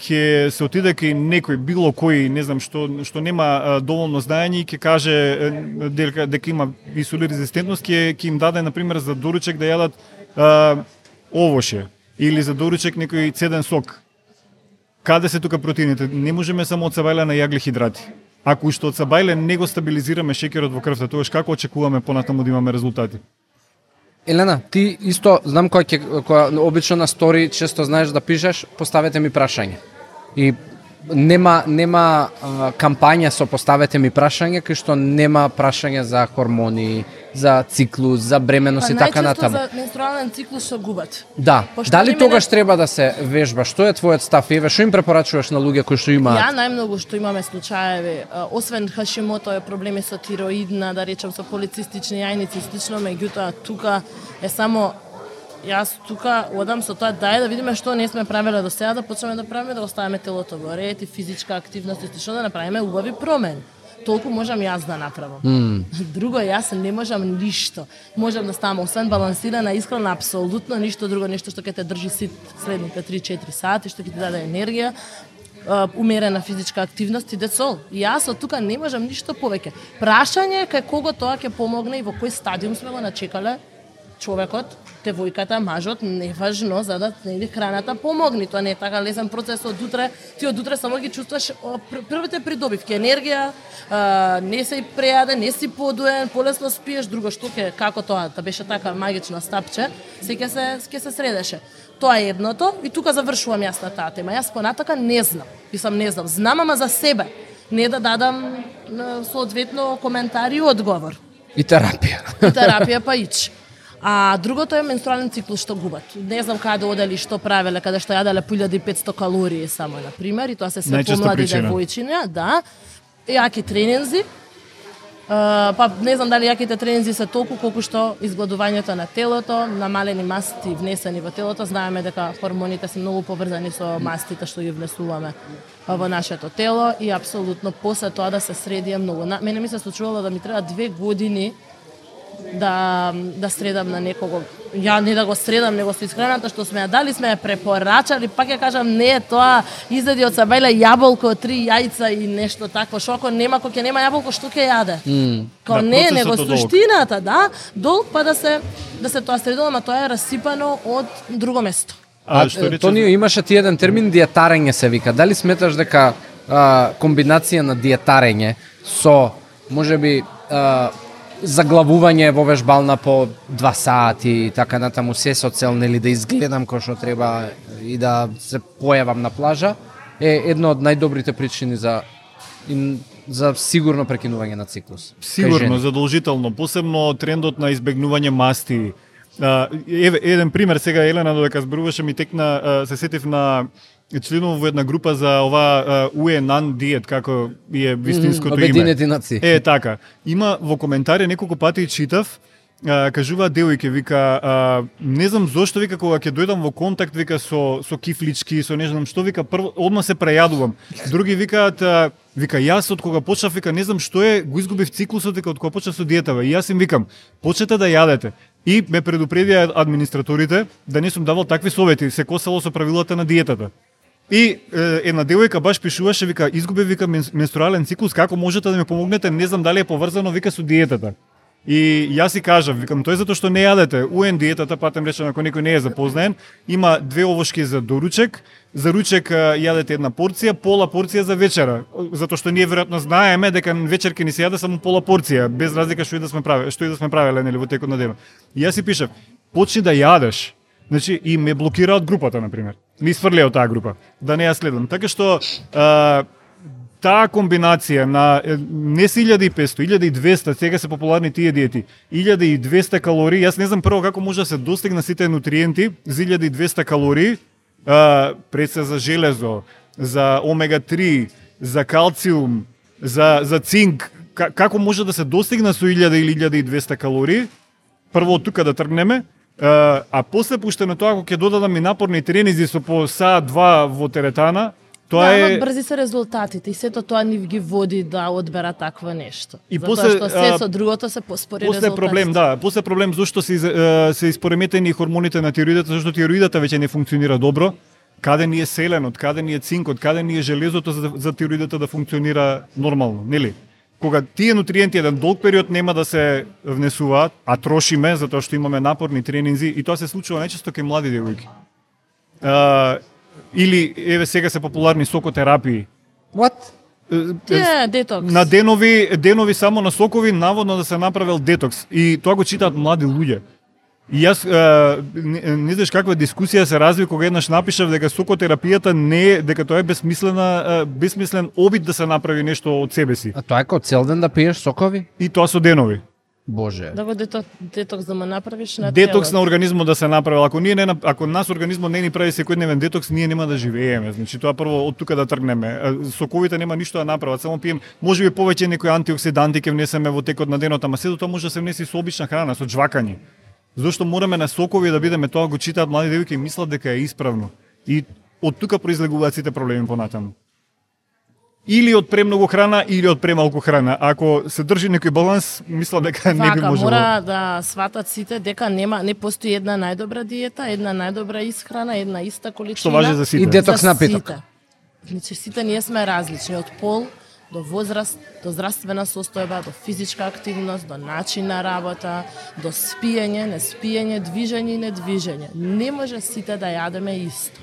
ќе се отиде кај некој било кој, не знам што нема доволно знаење и ќе каже дека има инсулин резистентност, ќе им даде на пример за доручек да јадат овоше или за доручек некој цеден сок. Каде се тука протеините? Не можеме само од сабајле на јаглехидрати. Ако уште од сабајле не го стабилизираме шеќерот во крвта, тогаш како очекуваме понатаму да имаме резултати? Елена, ти исто знам која обично на стори често знаеш да пишеш, поставете ми прашање. И нема кампања со поставете ми прашање, кај што нема прашање за хормони, за циклус, за бременност и така натаму. Најчесто за менструален циклус што губат. Да. Дали тогаш треба да се вежба? Што е твојот став? Еве, што им препорачуваш на луѓе кои што имаат? Ја најмногу што имаме случаеви, освен Хашимото е проблеми со тироидна, да речем со полицистични јајници и слично, меѓутоа тука е само јас тука одам со тоа да видиме што не сме правеле до сега, да почнеме да правиме, да оставиме телото во ред и физичка активност и што да направиме убави промени. Толку можам јас да направам. Друго јас не можам ништо. Можам да ставам освен балансирана исхрана, апсолутно ништо друго, нешто што ќе те држи сит следните 3-4 сати, што ќе ти даде енергија, умерена физичка активност и децол. Јас од тука не можам ништо повеќе. Прашање кај кого тоа ќе помогне и во кој стадиум сме го начекале човекот, девојката, мажот, неважно за да храната помогне. Тоа не е така лесен процес од утре. Ти од утре само ги чувствуваш првите придобивки, енергија, не си прејаден, не си подуен, полесно спиеш, друго што како тоа, да беше така магично стапче, се ќе се средеше. Тоа е едното и тука завршувам јас на таа тема. Јас понатака не знам. Не знам. Знам ама за себе. Не да дадам соодветно коментар и одговор. И терапија. И терапија па ич. А другото е менструален циклус што губат. Не знам каде одели, што правеле, каде што јаделе 1500 калории само на пример, и тоа се помлади девојчиња, да. Јаки тренинзи. Па не знам дали јаките тренинзи се толку колку што изгладувањето на телото, намалени масти внесени во телото. Знаеме дека хормоните се многу поврзани со мастите што ги внесуваме во нашето тело и апсолутно после тоа да се среди е многу. Мене ми се случувало да ми треба 2 години да средам на некого. Ја не да го средам, него со исхраната што сме ја дали, сме ја препорачали, пак ја кажам, не е тоа, изеди од сабајле јаболко, 3 јајца и нешто такво, што ако нема, кој ќе нема јаболко, што ќе јаде? Као не, него суштината, да, долг па да се тоа средило, ама тоа е расипано од друго место. Тонио, имаше ти еден термин диетарење се вика. Дали сметаш дека комбинација на диетарење со можеби заглавување во вежбална по 2 сати и така натаму се со цел нели да изгледам кој што треба и да се појавам на плажа е едно од најдобрите причини за сигурно прекинување на циклус. Сигурно, задолжително, посебно трендот на избегнување масти. Еден пример сега, Елена, додека зборуваше ми текна, се сетив на членов во една група за ова УЕНАН диет, како е вистинското име. Обединети нации. Така. Има во коментари неколку пати читав, кажуваат девојке, вика, не знам зошто, вика, кога ќе дојдам во контакт, вика, со кифлички, со не знам што, вика, прво, одма се прејадувам. Други викаат, вика, јас од кога почнав, вика, не знам што е, го изгубив циклусот, вика, од кога почнав со диетава. И јас им викам, почнете да јадете. И ме предупредија администраторите да не сум давал такви совети, се косало со правилата на диетата. И една девојка баш пишуваше, вика, изгубив, вика, менструален циклус, како можете да ми помогнете, не знам дали е поврзано, вика, со диетата. И јас си кажав, викам, тој затоа што не јадете. УН диетата, патем речено, ако некој не е запознаен, има 2 овошки за доручек. За ручек јадете една порција, пола порција за вечера. Затоа што ние веројатно знаеме дека вечер ќе ни се јаде само пола порција, без разлика што и да сме правеле, нели, во текот на денот. И јас си пишав, почни да јадеш. Значи, и ме блокира од групата, например. Ми изфрлија од таа група, да не ја следам. Така што таа комбинација на не се 1500, 1200, сега се популарни тие диети, 1200 калории, јас не знам прво како може да се достигна сите нутриенти за 1200 калории, пред се за железо, за омега-3, за калциум, за цинк, како може да се достигна со 1000 или 1200 калории, прво од тука да тргнеме, а после пуштено тоа, ако ќе додадам и напорни тренинзи со по саат-два во теретана, тоа да, е... брзи се резултатите и сето тоа ни ги води да одбера такво нешто. И затоа после, што се со другото се поспори резултатите. Проблем, да, после проблем зашто се испореметени хормоните на тироидата, зашто тироидата веќе не функционира добро. Каде ни е селенот, каде ни е цинкот, каде ни е железото за тироидата да функционира нормално, нели? Кога тие нутриенти еден долг период нема да се внесуваат, а трошиме затоа што имаме напорни тренинзи и тоа се случува најчесто кај млади девојки. Или еве сега се популарни сокотерапии. What? Тие детокс. На денови само на сокови наводно да се направил детокс и тоа го читаат млади луѓе. И јас не знаеш каква дискусија се разви кога еднаш напишав дека сокотерапијата не е, дека тоа е безсмислен обид да се направи нешто од себе си. А тоа е како цел ден да пиеш сокови? И тоа со денови. Боже. Да го детокс да ме направиш на Детокс телот. на организмот да се направи. Ако нас организмот не ни прави секојдневен детокс, ние нема да живееме. Значи тоа прво од тука да тргнеме. Соковите нема ништо да направат, само пием, можеби повеќе некои антиоксиданти ќе внесеме во текот на денот, ама сето тоа може да се внеси со обична храна, со жвакање. Зошто мораме на сокови да бидеме, тоа го читаат млади девојки и мислат дека е исправно. И од тука произлегуваат сите проблеми понатаму. Или од премногу храна, или од премалку храна. Ако се држи некој баланс, мислам дека не би можело. Мора да сватат сите дека не постои една најдобра диета, една најдобра исхрана, една иста количина. Што важи за сите. И детокс За напиток. сите. Значи сите ние сме различни од пол до возраст, до здравствена состојба, до физичка активност, до начин на работа, до спиење, неспиење, движење и недвижење. Не може сите да јадеме исто.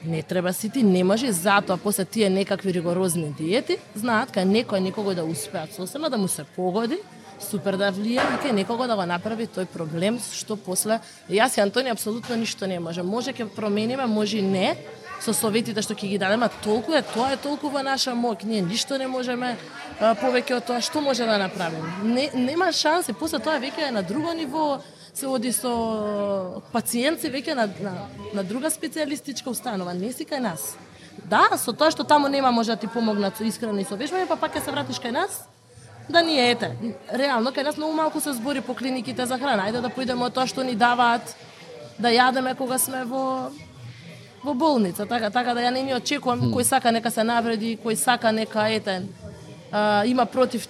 Не треба сите, не може, затоа после тие некакви ригорозни диети, знаат кај некој да успеат сосема, да му се погоди, супер да влие и кај некого да го направи тој проблем, што после... Јас и Антони апсолутно ништо не може. Може ќе промениме, може и не, со советите што ќе ги дадеме, толку е, тоа е толку во наша моќ. Ние ништо не можеме повеќе од тоа. Што може да направиме? Нема шанси, после тоа веќе е на друго ниво, се оди со пациенти веќе на друга специјалистичка установа, не си кај нас. Да, со тоа што таму нема може да ти помогнат со исхрана и со вежбање, па пак ќе се вратиш кај нас. Да ние ете, реално кај нас многу малку се збори по клиниките за храна. Ајде да поидеме од тоа што ни даваат да јадеме кога сме во болница, така да ја не ни очекувам кој сака нека се навреди, кој сака нека има против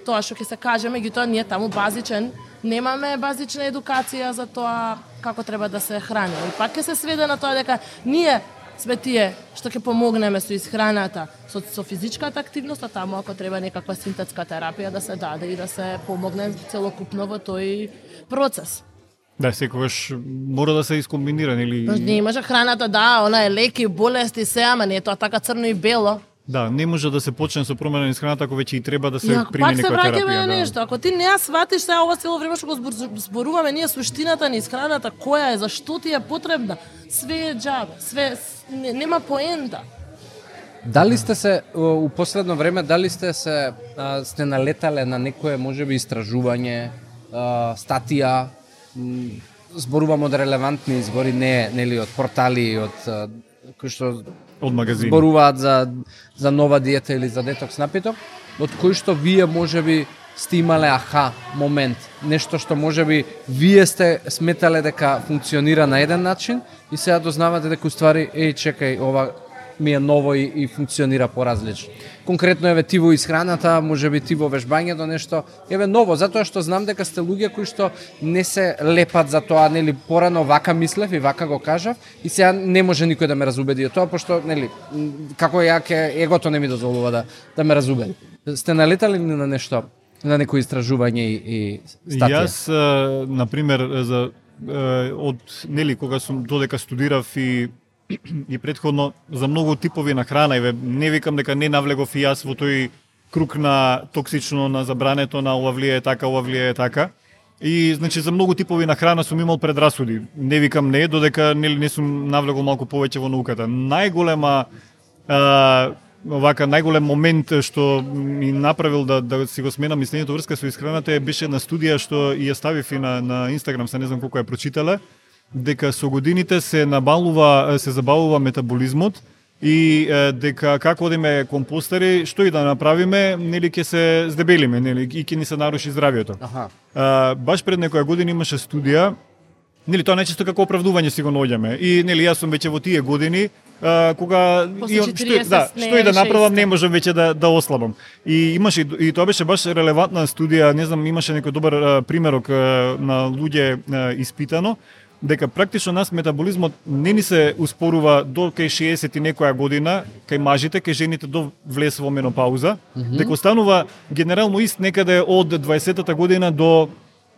тоа што ќе се каже, меѓутоа ние таму базичен немаме базична едукација за тоа како треба да се храни. И пак ќе се сведе на тоа дека ние сме тие што ќе помогнеме со исхраната, со физичката активност, а таму ако треба некаква синтетска терапија да се даде и да се помогне целокупно во тој процес. Да, секогаш мора да се искомбинира, или... Не може храната, да, она е леки, болести, се, ама не е тоа така црно и бело. Да, не може да се почне со промена на храната ако веќе и треба да се прими некоја терапија. Пак се враќаме на нешто. Ако ти не ја сватиш сега ова цело време што го зборуваме ние суштината на исхраната, која е, зашто ти е потребна, све е џабе, све нема поента. Дали сте се у последно време сте налетале на некое можеби истражување, статија, зборувам од релевантни извори, нели од портали, од кои што од магазини зборуваат за нова диета или за детокс напиток, од кои што вие можеби сте имале аха момент, нешто што можеби вие сте сметале дека функционира на еден начин и сега дознавате дека уствари чекај, ова ми е ново и функционира поразлично. Конкретно еве ти во исхраната, можеби ти во вежбањето нешто, еве ново, затоа што знам дека сте луѓе кои што не се лепат за тоа, нели, порано вака мислев и вака го кажав и сега не може никој да ме разубеди од тоа, пошто, нели, како ја егото не ми дозволува да ме разубеди. Сте налетали на нешто на некои истражување и статија? Јас, на пример, од нели кога сум додека студирав и претходно за многу типови на храна, и не викам дека не навлегов и јас во тој круг на токсично, на забрането, на ова влијае така, ова влијае така. И значи за многу типови на храна сум имал предрасуди. Не викам не, додека не сум навлегол малку повеќе во науката. Најголем момент што ми направил да си го сменам мислењето врска со исхраната беше на студија што ја ставив и на Инстаграм, се не знам колку ја прочитале, дека со годините се забавува метаболизмот и дека како одиме компостери, што и да направиме, нели ќе се здебелиме, нели и ќе ни се наруши здравјето. Баш пред некоја година имаше студија, нели тоа најчесто како оправдување си го наоѓаме. И нели јас сум веќе во тие години кога што и да направам не можам веќе да ослабам. И имаше и тоа беше баш релевантна студија, не знам, имаше некој добар примерок на луѓе испитано дека практично нас метаболизмот не ни се успорува до кај 60 и некоја година, кај мажите, кај жените до влез во менопауза, дека останува генерално ист некаде од 20-та година до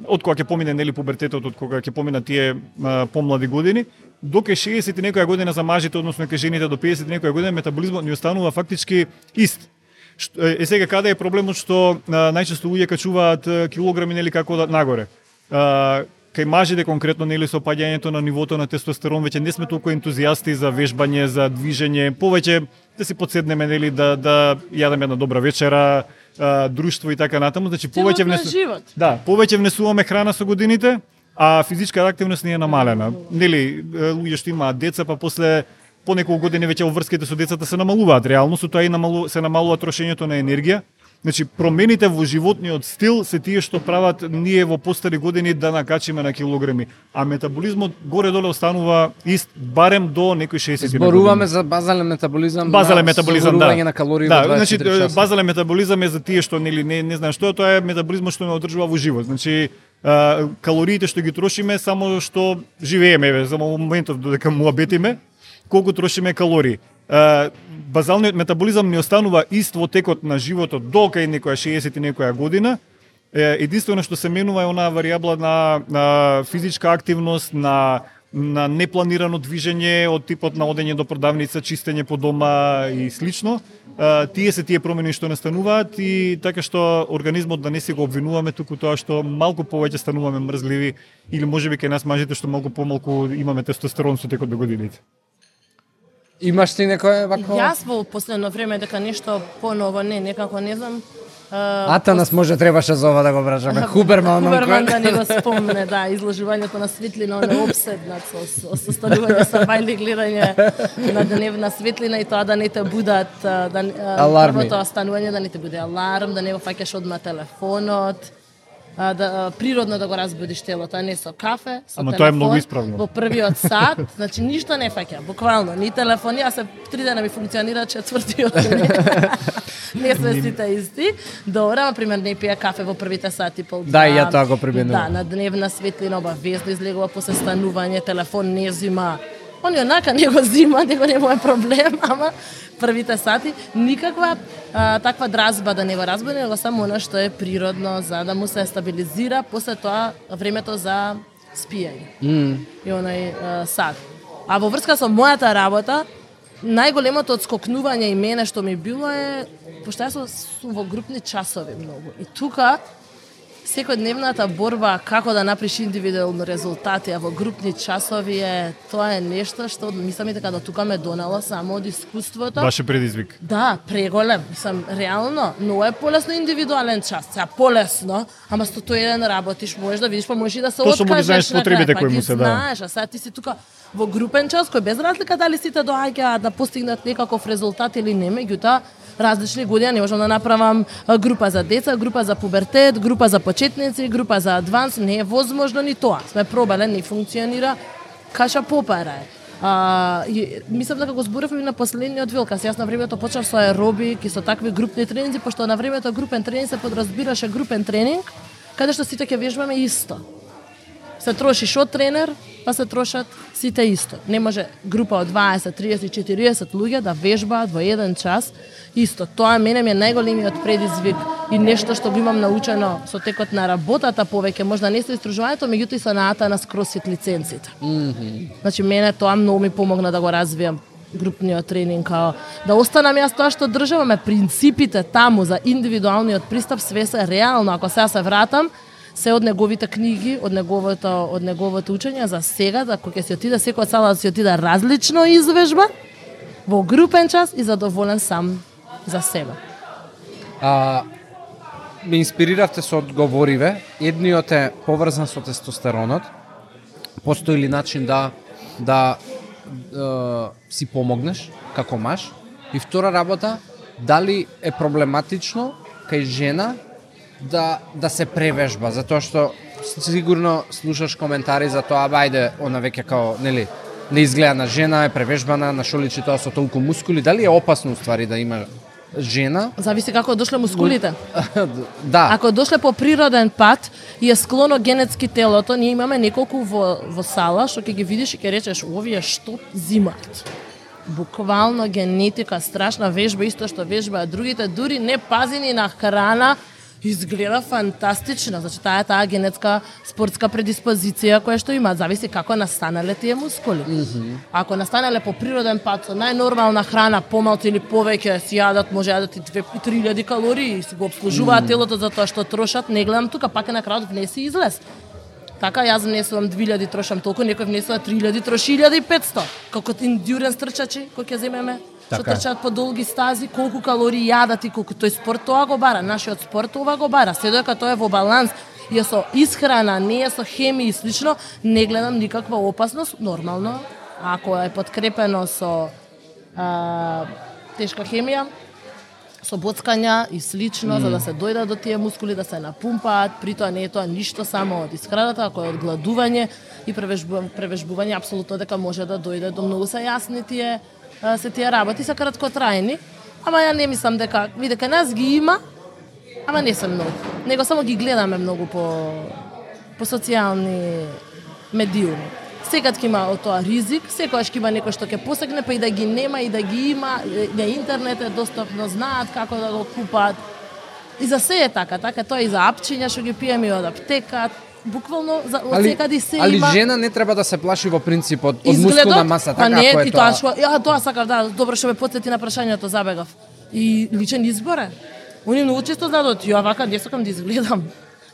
од кога ќе помине нели пубертетот, од кога ќе помина тие помлади години, до кај 60 и некоја година за мажите, односно кај жените до 50 и некоја година метаболизмот ни останува фактички ист. Сега каде е проблемот што најчесто луѓе качуваат килограми нели како нагоре. Кај мажите конкретно нели со опаѓањето на нивото на тестостерон веќе не сме толку ентузијасти за вежбање, за движење, повеќе да си подседнеме нели да јадеме една добра вечера, друштво и така натаму, значи повеќе внесуваме храна со годините, а физичка активност ни е намалена. Нели луѓе што имаат деца, па после по неколку години веќе обврските со децата се намалуваат, реално со тоа и се намалува трошењето на енергија. Значи, промените во животниот стил се тие што прават ние во постари години да накачиме на килограми, а метаболизмот горе-доле останува ист, барем до некои 60 години. Зборуваме за базален метаболизам, да. На калории во 24 значи, часа. Базален метаболизам е за тие што нели не знаат што е, тоа е метаболизмот што ме одржува во живот. Значи, калориите што ги трошиме само што живееме, за моментов додека муабетиме, колку трошиме калории. Базалниот метаболизам не останува ист во текот на животот до кај некоја 60 и некоја година. Единствено што се менува е онаа варијабла на физичка активност, на непланирано движење од типот на одење до продавница, чистење по дома и слично. Тие се тие промени што настануваат и така што организмот да не се го обвинуваме, туку тоа што малку повеќе стануваме мрзливи или можеби кај нас мажите што малку помалку имаме тестостерон со текот на годините. Имаш ти некој вако? Јас во последно време дека нешто поново некако не знам. Атанас може требаше за ова да го вражаме. Хуберман да не го спомне, да, изложувањето на светлина, он е обседнат со состанување со бајли гледање на дневна светлина и тоа да не те будат аларми. Првото станување да не те буде аларм, да не го фаќаш одма телефонот. Природно да го разбудиш телото, а не со кафе, со Ама телефон. тоа е многу исправно. Во првиот сат, значи ништо не фаќа, буквално, ни телефон, јас се 3 дена ми функционира, четвртиот не сме сите исти. Добро, например, не пија кафе во првите сати пол. Да, и ја тоа го применувам. Да, на дневна светлина обавезно излегува после станување, телефон не зима. Он онака не го зима, него не е проблем, ама првите сати никаква таква дразба да не го разбуди, него само она што е природно за да му се стабилизира после тоа времето за спиење. И онај сад. А во врска со мојата работа, најголемото одскокнување и мене што ми било е пошто јас сум во групни часови многу. И тука секојдневната борба како да направиш индивидуални резултати, а во групни часови тоа е нешто што мислам и дека до тука ме донело само од искуството. Баше предизвик. Да, преголем. Мислам, реално, но е полесно индивидуален час. Сега полесно, ама 101 работиш, можеш да видиш, па можеш и да се откажеш. Точно ги знаеш потребите кои му се да. Знаеш, а сега ти си тука во групен час, кој без разлика дали сите доаѓаат да постигнат некаков резултат или не, меѓутоа различни години, не можам да направам група за деца, група за пубертет, група за почетници, група за адванс, не е возможно ни тоа. Сме пробале, не функционира, каша попара е. Мислам дека го зборував и на последниот вилкас. Јас на времето почнав со аеробик и со такви групни тренинзи, пошто на времето групен тренинг се подразбираше групен тренинг, каде што сите ќе вежбаме исто. Се троши шо тренер, па се трошат сите исто. Не може група од 20, 30, 40 луѓе да вежбаат во еден час исто. Тоа мене ми е најголемиот предизвик и нешто што го имам научено со текот на работата повеќе, можда не со истражувањето, меѓутоа и со наата на CrossFit лиценците. Значи мене тоа многу ми помогна да го развијам групниот тренинг, као да останам јас тоа што државаме, принципите таму за индивидуалниот пристап све се реално. Ако сега се вратам, се од неговите книги, од неговото учење за сега, да кога ќе си отиде секоја сала да си отиде различно извежба во групен час и задоволен сам за себе. Ме инспириравте со одговориве. Едниот е поврзан со тестостеронот. Постои ли начин да си помогнеш како маж? И втора работа, дали е проблематично кај жена да се превежба, затоа што сигурно слушаш коментари за тоа, ајде, она веќе као, нели, не изгледа на жена, е превежбана, на шо личи тоа со толку мускули, дали е опасно уствари да има жена? Зависи како дошле мускулите. Да. Ако дошле по природен пат и е склоно генетски телото, ние имаме неколку во сала што ќе ги видиш и ќе речеш овие што зимаат. Буквално генетика, страшна вежба, исто што вежбаат другите, дури не пазени на храна, изгледа фантастично. Значи таа генетска спортска предиспозиција која што има, зависи како настанале тие мускули. Ако настанале по природен пат со најнормална храна, помалку или повеќе си јадат, може јадат и 2-3 калории, си го обслужуваат телото за тоа што трошат, не гледам тука, пак е на крајот внеси излез. Така јас внесувам 2000, трошам толку, некој внесува 3000, троши 1500. Како индюренс трчачи кои ќе земеме, што трчаат по долги стази, колку калории јадат и колку тој спорт тоа го бара, нашиот спорт ова го бара. Се додека тоа е во баланс и е со исхрана, не е со хемија и слично, не гледам никаква опасност, нормално, ако е подкрепено со тешка хемија, со боцкања и слично, за да се дојдат до тие мускули, да се напумпаат, при тоа не е тоа ништо само од исхраната, ако е од гладување и превежбување, апсолутно дека може да дојде до многу се јасни тие работи, се краткотрајни, ама ја не мислам дека нас ги има, ама не се многу. Него само ги гледаме многу по социјални медиуми. Секад ќе има од тоа ризик, секогаш ќе има некој што ќе посегне, па и да ги нема, и да ги има, на интернет е достапно, знаат како да го купат. И за се е така, тоа и за апчиња што ги пиеме од аптека, буквално од секаде се има. Али жена не треба да се плаши во принцип од мускулна маса, така не, ако е тоа. Тоа сакав, да, добро што ме потсети на прашањето, забегав. И личен избор е. Они многу често знаат, ја вака не сакам да изгледам.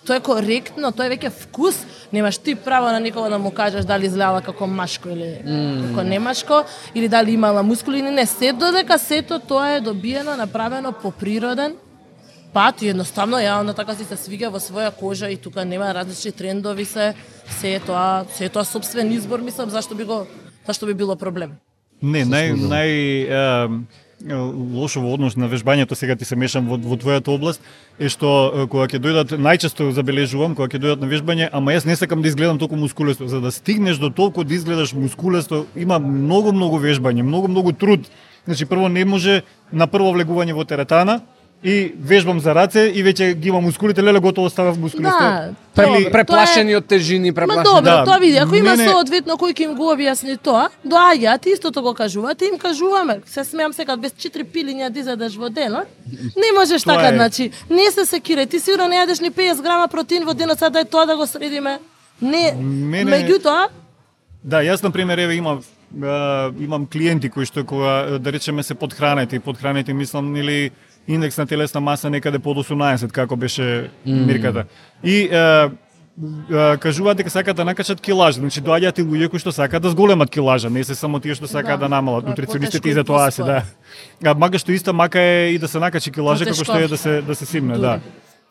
Тоа е коректно, тоа е веќе вкус. Немаш ти право на никого да му кажеш дали изгледала како машко или како немашко, или дали имала мускули или не. Се додека сето тоа е добиено, направено по природен пат и едноставно ја на така си се свига во своја кожа и тука нема различни трендови се е тоа сопствен избор, мислам, зашто би било проблем. Не, лошо во однос на вежбањето, сега ти се мешам во твојата област, е што кога ќе дојдат, најчесто забележувам, кога ќе дојдат на вежбање, ама јас не сакам да изгледам толку мускулесто. За да стигнеш до толку да изгледаш мускулесто, има многу вежбање, многу труд. Значи, прво не може на прво влегување во теретана, и вежбам за раце и веќе ги има мускулите, леле готово ставав мускулесто. Да, преплашени од тежини, преплашени. Ма добро, тоа види, ако има соодветно кој ќе им го објасни тоа, доаѓаат истото го кажуваат, им кажуваме. Се смеам секад без 4 пилиња да изедеш во денот. Не можеш така, значи, не се секирај, ти сигурно не јадеш ни 50 грама протеин во денот, сега да е тоа да го средиме. Не, меѓутоа. Да, јас на пример еве имам клиенти кои што кога да речеме се подхранети, мислам или индекс на телесна маса некаде под 18, како беше мирката. И кажуваат дека сакаат да накачат килажа, значи доаѓаат и луѓе кои што сакаат да зголемат килажа, не се само тие што сакаат да намалат. Нутриционистите и за тоа се, да. Мага што иста мака е и да се накачи килажа како што е да се симне, да.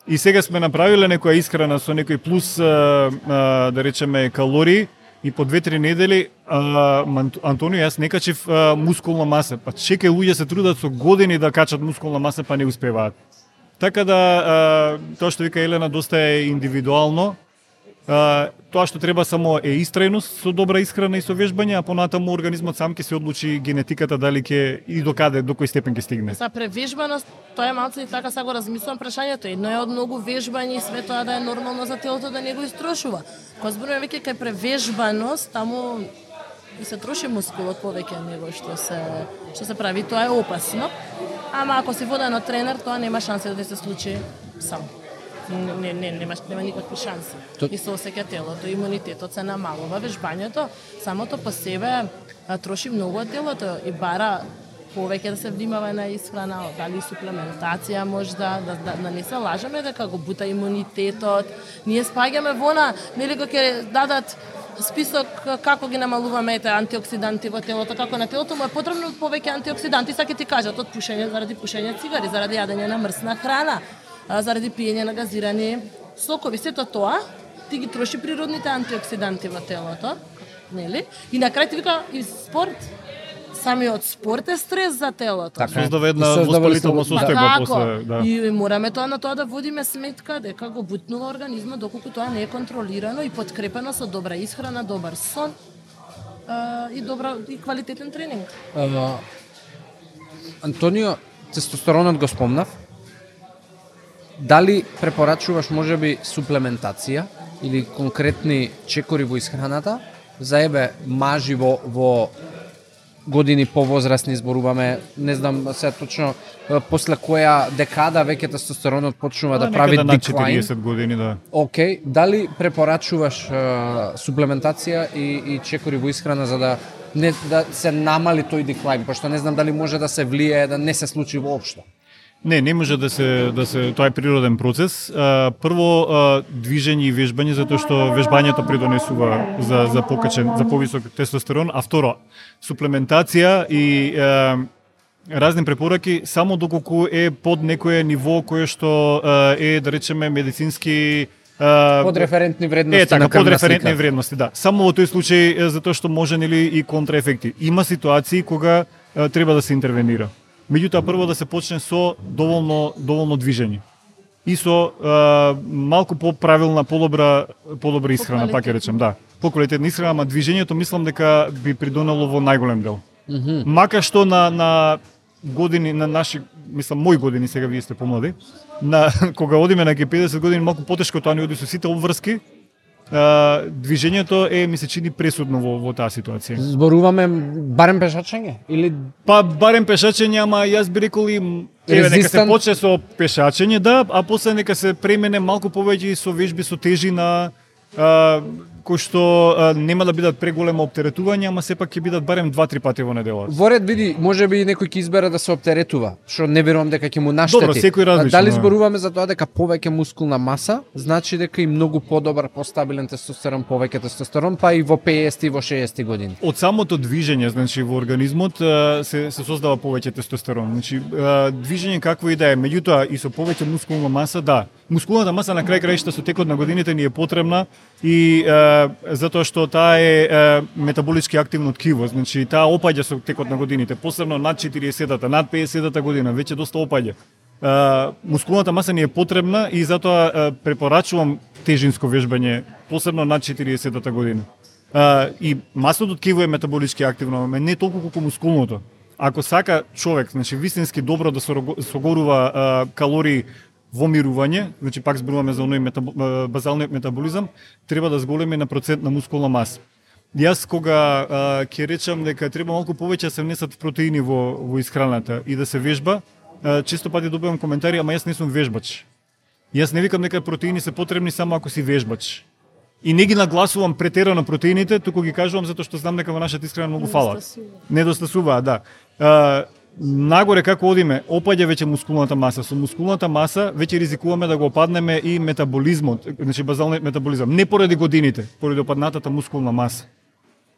И сега сме направиле некоја исхрана со некој плюс да речеме калории. И по 2-3 недели, Антонио, јас не качив мускулна маса. Па чекај, луѓе се трудат со години да качат мускулна маса, па не успеваат. Така да, тоа што вика Елена, доста е индивидуално. Тоа што треба само е истрајност со добра исхрана и со вежбање, а понатаму организмот сам ќе се одлучи генетиката дали ќе и до каде, до кој степен ќе стигне. За превежбаност, тоа е малце и така сега го размислувам прашањето. Едно е од многу вежбање и све тоа да е нормално за телото да не го истрошува. Кога зборуваме веќе кај превежбаност, таму и се троши мускулот повеќе него што се прави, тоа е опасно. Ама ако си воден од тренер, тоа нема шанса да се случи сам. Нема никакви шанси. И се осеќа телото, имунитетот се намалува, вежбањето самото по себе троши многу од телото и бара повеќе да се внимава на исхрана, дали суплементација можда, да не се лажеме дека го бута имунитетот. Ние спаѓаме вона, нели кога ќе дадат список како ги намалуваме антиоксиданти во телото, како на телото му е потребно повеќе антиоксиданти, саќе ти кажат од пушење, заради пушење цигари, заради јадење на мрсна храна, заради пиење на газирани сокови. Сето тоа ти ги троши природните антиоксиданти во телото, нели? И на крај ти вика и спорт. Самиот спорт е стрес за телото. Создава една воспалителна состојба после, да. И мораме тоа на тоа да водиме сметка дека го бутнува организмот доколку тоа не е контролирано и подкрепено со добра исхрана, добар сон и квалитетен тренинг. Антонио, тестостеронот го спомнав. Дали препорачуваш можеби суплементација или конкретни чекори во исхраната за мажи во години повозрастни, зборуваме, не знам се точно после која декада веќе тестостеронот почнува да прави деклайн. 40 години, да. Океј, дали препорачуваш суплементација и чекори во исхрана за да се намали тој деклайн, пошто не знам дали може да се влие да не се случи воопшто. Не може да се тоа е природен процес. Прво движење и вежбање затоа што вежбањето придонесува за повисок тестостерон, а второ суплементација и разни препораки само доколку е под некое ниво кое што е, да речеме, медицински подреферентни вредности на крвна подреферентни вредности, да. Само во тој случај затоа што може нели и контраефекти. Има ситуации кога треба да се интервенира. Меѓутоа прво да се почне со доволно движење. И со малку поправилна, подобра исхрана, пак ќе речем, да. Поквалитетна исхрана, ама движењето мислам дека би придонело во најголем дел. Мака што на години, на наши, мислам, мои години, сега вие сте помлади, кога одиме на 50 години, малку потешко тоа ни оди со сите обврски, движењето ми се чини пресудно во таа ситуација. Зборуваме барем пешачење или барем пешачење, ама јас би рекол и нека се почне со пешачење, да, а после нека се премене малку повеќе со вежби со тежина, кои што нема да бидат преголемо оптеретување, ама сепак ќе бидат барем 2-3 пати во неделата. Во ред види, можеби некој ќе избере да се оптеретува, што не верувам дека ќе му наштети. Добро, секој различно. Дали зборуваме за тоа дека повеќе мускулна маса, значи дека и многу подобар, постабилен тестостерон, повеќе тестостерон, па и во 50 и во 60 години. Од самото движење, значи во организмот се создава повеќе тестостерон. Значи движење какво и да е, меѓутоа и со повеќе мускулна маса, да. Мускулната маса на крај краишта со текот на годините ни е потребна и затоа што таа е метаболички активно ткиво, значи таа опаѓа со текот на годините, посебно над 40-та, над 50-та година, веќе доста опаѓа. Мускулната маса ни е потребна и затоа препорачувам тежинско вежбање, посебно над 40-та година. И масното ткиво е метаболички активно, но не толку колку мускулното. Ако сака човек, значи вистински добро да согорува калории во мирување, значи пак зборуваме за оној базалниот метаболизам, треба да зголеми на процент на мускулна маса. Јас кога ќе речам дека треба малку повеќе да се внесат протеини во исхраната и да се вежба, често пати добивам коментари, ама јас не сум вежбач. Јас не викам дека протеини се потребни само ако си вежбач. И не ги нагласувам претерано протеините, туку ги кажувам затоа што знам дека во нашата исхрана многу фалат. Недостасуваат, да. Нагоре како одиме, опаѓа веќе мускулната маса. Со мускулната маса веќе ризикуваме да го опаднеме и метаболизмот, значи базалниот метаболизам, не поради годините, поради опаднатата мускулна маса.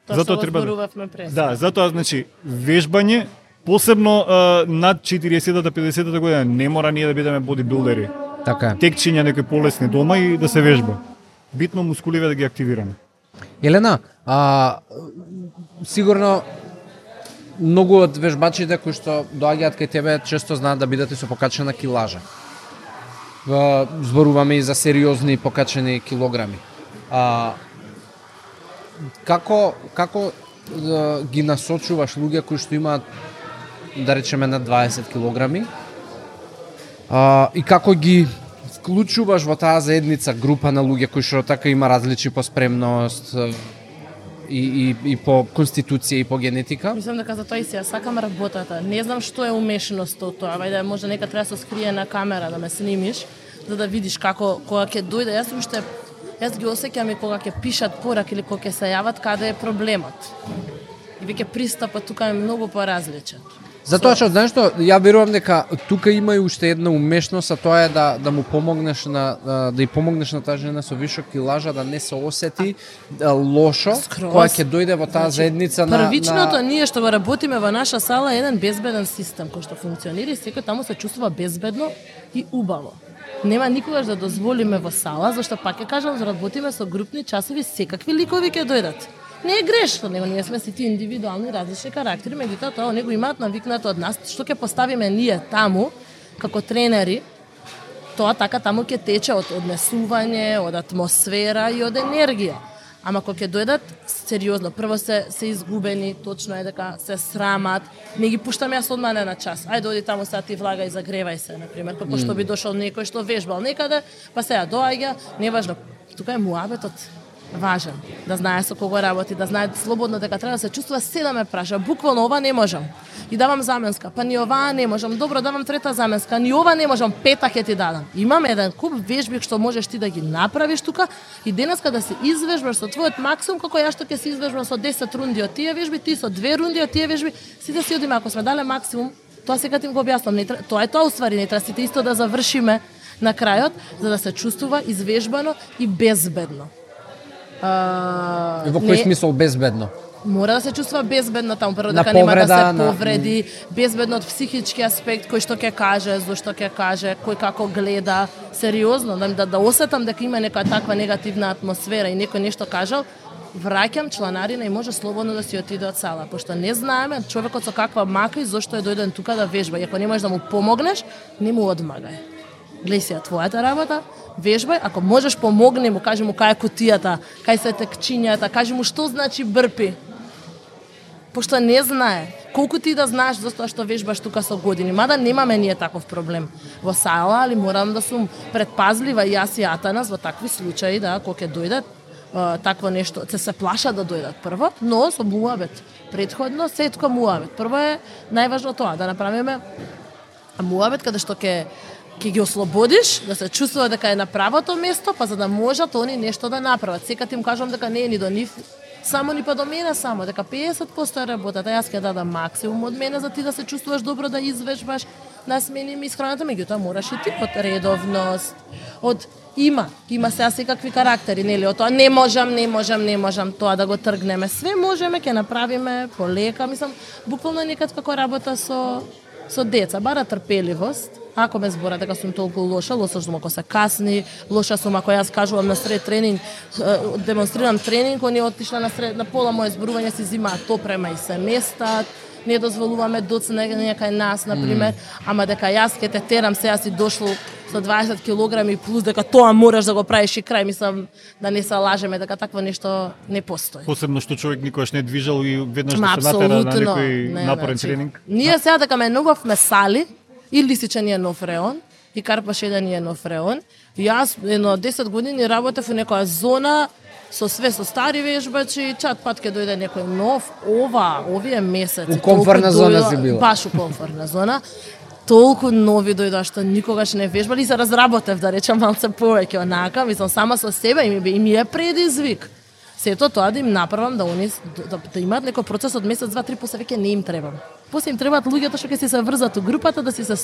Затоа треба да, затоа значи вежбање, посебно над 40-та, 50-та година, не мора ние да бидеме бодибилдери. Така. Текчиња некои полесни дома и да се вежба. Битно мускуливе да ги активираме. Елена, сигурно многу од вежбачите кои што доаѓаат кај тебе често знаат да бидат и со покачена килажа. Зборуваме и за сериозни покачени килограми. Како ги насочуваш луѓе кои што имаат, да речеме, на 20 килограми, и како ги вклучуваш во таа заедница група на луѓе кои што така има различни по спремност и по конституција и по генетика? Мислам дека за тоа и сега сакам работата. Не знам што е умешноста од тоа. Вајде може нека треба да се скрие на камера да ме снимиш, за да видиш како кога ќе дојде. Јас ги осеќам и кога ќе пишат пораки или кога ќе се јават каде е проблемот. И веќе пристапот тука е многу поразличен. Затоа што знаеш што, ја верувам дека тука има и уште една умешност, а тоа е да му помогнеш да ја помогнеш на таа жена со вишок килажа да не се осети лошо кога ќе дојде во таа заедница на првичното ние што го работиме во наша сала е еден безбеден систем кој што функционира и секој таму се чувствува безбедно и убаво. Нема никогаш да дозволиме во сала, зашто пак ќе кажам, работиме со групни часови, секакви ликови ќе дојдат. Не е грешно, него ние сме сите индивидуални различни карактери, меѓутоа тоа него имаат навикнато од нас, што ќе поставиме ние таму како тренери, тоа така таму ќе тече од однесување, од атмосфера и од енергија. Ама кога ќе дојдат сериозно, прво се изгубени, точно е дека се срамат, не ги пуштам јас одма на час. Ајде оди таму сега ти влагај, загревај се, на пример, како што би дошол некој што вежбал некаде, па сега доаѓа, неважно. Тука е муабетот важен, да знае со кого работи, да знае слободно дека треба да се чувствува, се да ме праша, буквално ова не можам. И давам заменска, па ни оваа не можам, добро давам трета заменска, ни ова не можам, пета ќе ти дадам. Имам еден куп вежби што можеш ти да ги направиш тука и денеска да се извежбаш со твојот максимум, како ја што ќе се извежбам со 10 рунди од тие вежби, ти со 2 рунди од тие вежби, сите си одиме, ако сме дале максимум, тоа сега ти го објаснам, тоа е тоа уствари, не треба сите исто да завршиме на крајот, за да се чувствува извежбано и безбедно. Во кој смисол безбедно? Мора да се чувствува безбедно таму, прво дека нема да се повреди, безбедно од психички аспект, кој што ќе каже, зошто ќе каже, кој како гледа, сериозно, да осетам дека има нека таква негативна атмосфера и некој нешто кажал, враќам чланарина и може слободно да си отиде од сала, пошто не знаеме човекот со каква мака и зошто е дојден тука да вежба, и ако не можеш да му помогнеш, не му одмагај. Гледај си твојата работа, вежбај, ако можеш помогни му, кажи му кај е кутијата, кај се текчињата, кажи му што значи брпи. Пошто не знае. Колку ти да знаеш за тоа што вежбаш тука со години, мада немаме ние таков проблем во сала, али морам да сум предпазлива и јас и Атанас во такви случаи, да, кога ќе дојдат такво нешто, се плаша да дојдат прво, но со муабет. Претходно се тука муабет. Прво е најважно тоа, да направиме муабет каде што ќе ги ослободиш, да се чувствува дека е на правото место, па за да можат они нешто да направат. Секад им кажам дека не е ни до нив, само ни па до мене само, дека 50% е работата. Јас ќе дадам максимум од мене за ти да се чувствуваш добро, да извежбаш, да сменим исхраната, меѓутоа мораш и ти од редовност, од има сега секакви карактери, нели, од тоа не можам тоа да го тргнеме. Све можеме, ќе направиме полека, мислам, буквално некад како работа со деца, бара трпеливост. Ако ме збора дека сум толку лоша сум ако се касни, лоша сум ако јас кажувам на сред тренинг, демонстрирам тренинг, они отишла на пола моје зборување си зимаат топрема и се местат, не дозволуваме доцнење кај нас, например, ама дека јас ќе те терам, сега си дошло со 20 килограми плюс дека тоа мораш да го правиш и крај, мислам да не се лажеме дека такво нешто не постои. Посебно што човек никогаш не движал и веднаш да се натера на некој напорен тренинг. Ние сега дека ме новавме сали, и Лисича ни е нов реон, и Карпашеда ни е нов реон. Јас едно 10 години работев во некоја зона со стари вежбачи, чат пат ќе дојде некој нов, овие месеци. У комфортна зона си била. Баш у комфортна зона. Толку нови дојдоа што никогаш не вежбали и се разработев, да речам малце повеќе онака, мислам сама со себе и ми е предизвик. Сето тоа да им направам да они да имаат некој процес од месец, 2-3, после веќе не им требам. После им требаат луѓето што ќе си се врзат у групата, да си се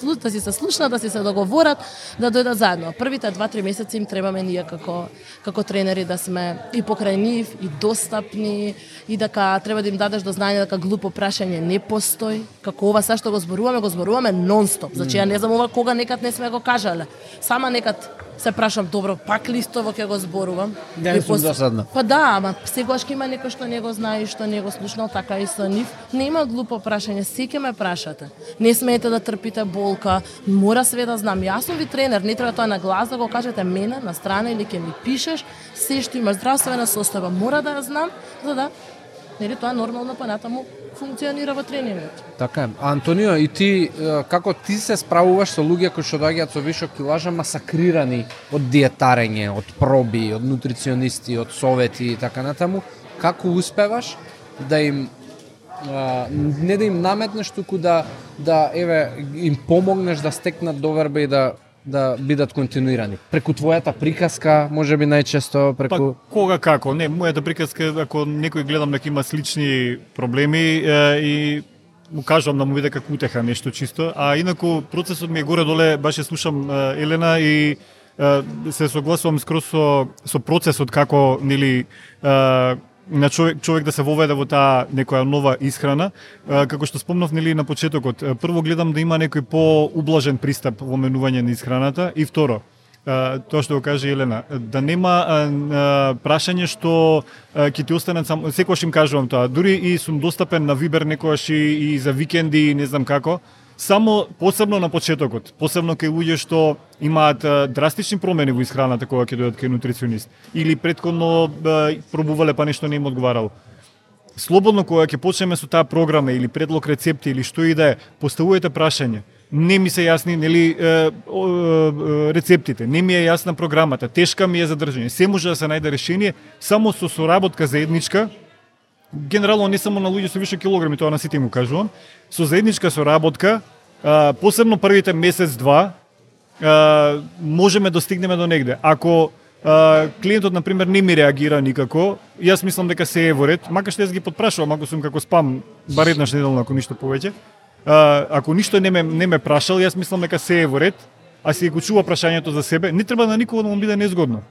слушнат, да си се договорат, да дојдат заедно. Првите 2-3 месеци им требаме ние како тренери да сме и покрај нив, и достапни, и дека треба да им дадеш до знање дека глупо прашање не постои. Како ова сега што го зборуваме нонстоп. Значи ја не знам ова кога некад не сме го кажале. Сама некад се прашам, добро, пак ли истово ќе го зборувам? Не сум досадна. Па да, ама сегаш ќе има некој што не го знае и што не го слушнал, така и со нив. Нема глупо прашање, се ќе ме прашате. Не смеете да трпите болка, мора све да знам. Јас сум ви тренер, не треба тоа на глас да го кажете мене на страна или ќе ми пишеш, се што има здравствена состава, мора да ја знам, за да нели тоа нормално па натаму функционира во тренингот. Така е. Антонио, и ти како ти се справуваш со луѓе кои што доаѓаат со вишок килажа масакрирани од диетарење, од проби, од нутриционисти, од совети и така натаму, како успеваш да им не да им наметнеш, туку да еве им помогнеш да стекнат доверба и да бидат континуирани. Преку твојата приказка, можеби најчесто преку... Па кога како? Не, мојата приказка, ако некој гледам дека има слични проблеми и му кажувам да му биде како утеха нешто чисто, а инаку процесот ми е горе-доле, баш ја слушам Елена и се согласувам скроз со процесот како нели на човек да се воведе во таа некоја нова исхрана, како што спомнав нели на почетокот. Прво гледам да има некој поублажен пристап во менување на исхраната и второ, тоа што го каже Елена, да нема прашање што ќе ти останат само, секогаш им кажувам тоа, дури и сум достапен на Вибер некогаш и за викенди, не знам како, само посебно на почетокот, посебно кај луѓе што имаат драстични промени во исхраната кога ќе дојдат кај нутриционист или претходно пробувале па нешто не им одговарало. Слободно кога ќе почнеме со таа програма или предлог рецепти или што и да е, поставувајте прашање. Не ми се јасни нели рецептите, не ми е јасна програмата, тешка ми е за држање. Се може да се најде решение само со соработка заедничка. Генерално не само на луѓе со више килограми, тоа на сите му кажувам, со заедничка соработка, посебно првите месец-два, можеме да стигнеме до негде. Ако клиентот, например, не ми реагира никако, јас мислам дека се е во ред, макар што јас ги подпрашувам, ако сум како спам, бар еднаш неделно, ако ништо повеќе, ако ништо не ме прашал, јас мислам дека се е во ред, а си го чува прашањето за себе, не треба на никого да му биде незгодно.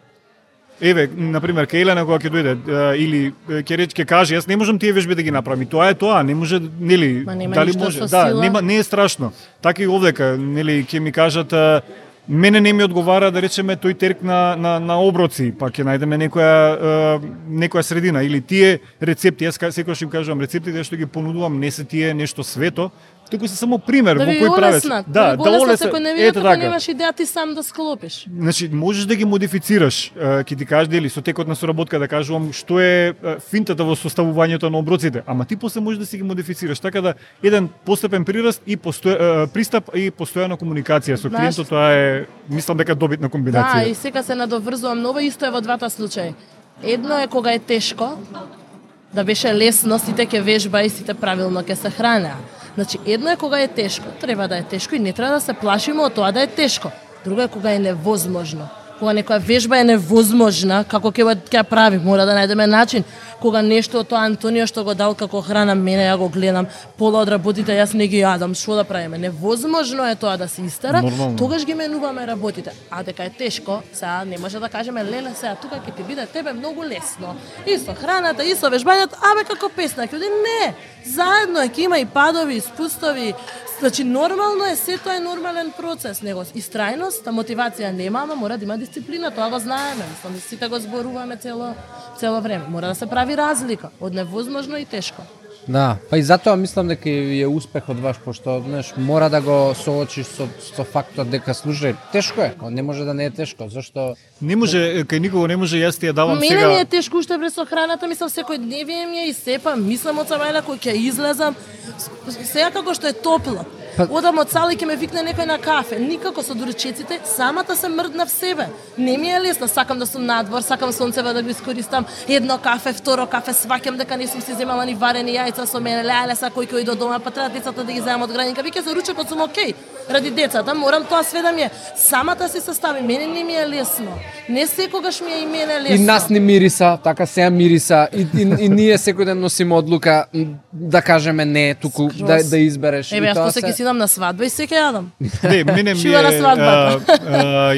Еве, например, кај Елена кога ќе дојде или ќе каже, јас не можам тие вежби да ги направам. И тоа е тоа, не може, нели, дали може? Да, не е страшно. Така и овдека, нели, ќе ми кажат мене не ми одговара да речеме тој терк на оброци, па ќе најдеме некоја средина или тие рецепти, јас секогаш им кажувам, рецептите што ги понудувам не се тие нешто свето, туку се само пример во кој правец. Да олеснат, секој не види дека немаш идеја ти сам да склопиш. Значи, можеш да ги модифицираш, ќе ти кажеш дели со текот на соработка да кажувам што е финтата во составувањето на оброците, ама ти после можеш да си ги модифицираш, така да еден постепен прираст и пристап и постојана комуникација со клиентот, тоа е мислам дека добитна комбинација. Да, и сега се надоврзувам ново, исто е во двата случаи. Едно е кога е тешко, да беше лесно, сите ќе вежба и сите правилно ќе се хранеа. Значи, едно е кога е тешко, треба да е тешко и не треба да се плашиме од тоа да е тешко. Друго е кога е невозможно. Кога некоја вежба е невозможна, како ќе ја прави, мора да најдеме начин. Кога нешто од тоа Антонио што го дал како храна, мене ја го гледам, пола од работите јас не ги јадам, што да правиме? Невозможно е тоа да се истера, тогаш ги менуваме работите. А дека е тешко, сега не може да кажеме леле сега тука ќе ти биде тебе многу лесно. И со храната, и со вежбањето, абе како песна, ќе не, заедно е, ќе има и падови, и спустови. Значи нормално е, сето е нормален процес, него истрајност, мотивација нема, ама мора да има дисциплина, тоа го знаеме, мислам, сите го зборуваме цело време. Мора да се прави разлика од невозможно и тешко. Да, па и затоа мислам дека е успех од ваш, пошто знаеш, мора да го соочиш со фактот дека слушај, тешко е, не може да не е тешко, зашто не може, кај никого не може, јас ти ја давам сега. Мене ми е тешко уште врз со храната, мислам секој дневие ми е и сепа, мислам од самајла кој ќе излезам, сега како што е топло. Одам од сала и ќе ме викне некој на кафе. Никако со дурчеците, самата се мрдна в себе. Не ми е лесно, сакам да сум надвор, сакам сонцева да го искористам. Едно кафе, второ кафе, сваќам дека не сум си земала ни варени јајца со мене. Леле, са кој до дома, па треба децата да ги земам од градинка. Виќе за ручекот сум окей. Ради децата, морам тоа све да ми е. Самата се состави, мене не ми е лесно. Не секогаш ми е и мене лесно. И нас не мириса, така сега мириса. И ние секој ден носиме одлука да кажеме не, туку да избереш. Еве, јас после ќе си идам на свадба и се ќе јадам. Не, мене ми Шива на свадбата.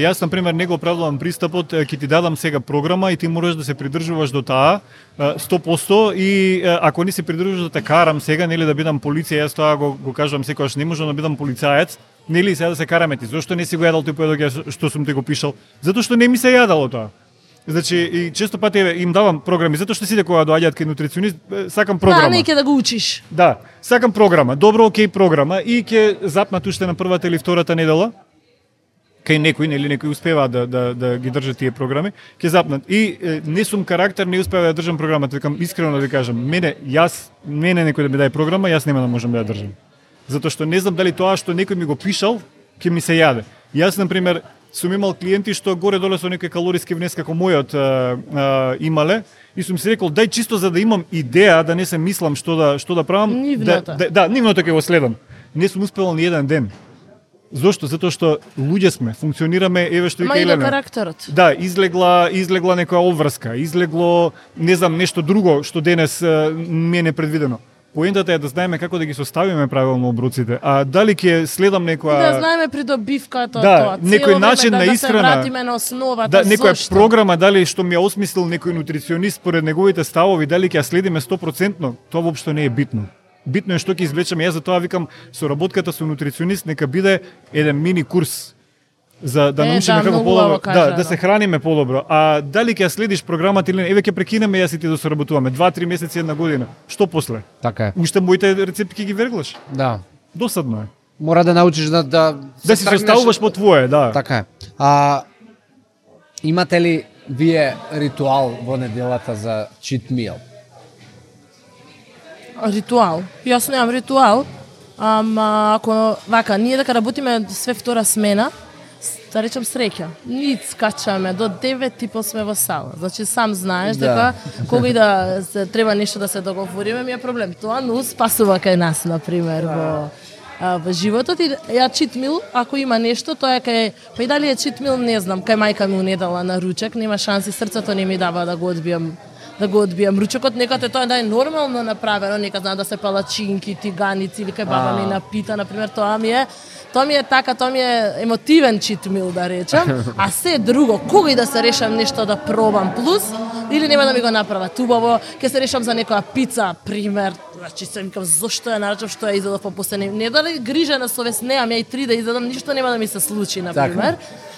Јас на пример не го оправдувам пристапот, ќе ти дадам сега програма и ти мораш да се придржуваш до таа 100% и ако не се придржуваш да те карам сега, нели да бидам полиција, јас тоа го кажувам секогаш, не можам да бидам полицаец, нели сега да се караме ти. Зошто не си го јадал тој поедок што сум ти го пишал? Затоа што не ми се јадало тоа. Значи, и често пати им давам програми, затоа што сите кога доаѓаат кај нутриционист, сакам програма. Да, не ќе да го учиш. Да, сакам програма, добро, окей програма и ќе запнат уште на првата или втората недела. Кај некој, нели некој успева да ги држат тие програми, ќе запнат. И не сум карактер, не успева да држам програмата, викам искрено да ви кажам, мене некој да ми даде програма, јас нема да можам да ја држам. Затоа што не знам дали тоа што некој ми го пишал ќе ми се јаде. Јас на пример сум имал клиенти што горе-доле со некој калориски внес како мојот имале и сум си рекол дај чисто за да имам идеја, да не се мислам што да правам, нивното ќе го следам. Не сум успевал ни еден ден. Зошто? Затоа што луѓе сме, функционираме, еве што и Ма и до карактерот. Да, излегла некоја обврска, излегло не знам нешто друго што денес ми е непредвидено. Поентата е да знаеме како да ги составиме правилно оброците, а дали ќе следам некоја Да знаеме придобивката тоа. Некој начин на исхрана. Да се вратиме на основата. Да, некоја програма дали што ми ја осмислил некој нутриционист според неговите ставови, дали ќе ја следиме 100%, тоа воопшто не е битно. Битно е што ќе извлечеме. Јас затоа викам соработката со нутриционист нека биде еден мини курс за да научиме како подобро, да се храниме подобро. А дали ќе ја следиш програмата или не, еве ќе прекинеме јас и ти да соработуваме 2-3 месеци, една година. Што после? Така е. Уште моите рецепти ќе ги верглаш. Да. Досадно е. Мора да научиш да си составуваш по твое, да. Така е. Имате ли вие ритуал во неделата за cheat meal? Ритуал. Јас немам ритуал. Ако вака, ние дека работиме све втора смена, да речем среќа. Ние скачаме до 9 типо сме во сала. Значи сам знаеш дека кога и да се треба нешто да се договориме, ми е проблем. Тоа но спасува кај нас на пример во животот и ја cheat meal, ако има нешто, тоа е кај па и дали е cheat meal, не знам, кај мајка ми унедала на ручек, нема шанси, срцето не ми дава да го одбијам ручекот, некад е тоа да е нормално направено, некад знам да се палачинки, тиганици или кај баба ми напита, на пример, тоа ми е емотивен cheat meal да речам, а се друго, кога и да се решам нешто да пробам плюс, или нема да ми го направат убаво, ќе се решам за некоја пица, пример, значи се викам зошто ја нарачав, што ја изедов по последни, не дали грижа на совест, неам ја и 3 да изедам, ништо нема да ми се случи, на пример.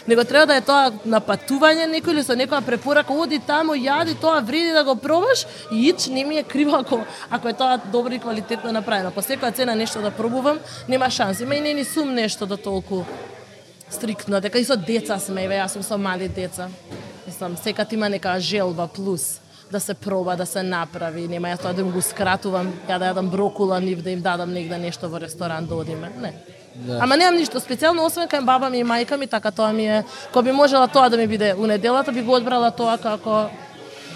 Него треба да е тоа на патување некој или со некоја препорака, оди таму, јади, тоа вреди да го пробаш и ич не ми е криво ако е тоа добро и квалитетно направено. По секоја цена нешто да пробувам, нема шанси. Ма и не ни сум нешто да толку стриктно, дека и со деца сме, јас сум со мали деца. Мислам, секад има нека желба плюс да се проба, да се направи, нема јас тоа да им го скратувам, ја да јадам брокула, нив да им дадам негде нешто во ресторан да одиме, не. Да. Ама немам ништо специјално, освен кај баба ми и мајка ми, така тоа ми е, кога би можела тоа да ми биде у неделата, би го одбрала тоа како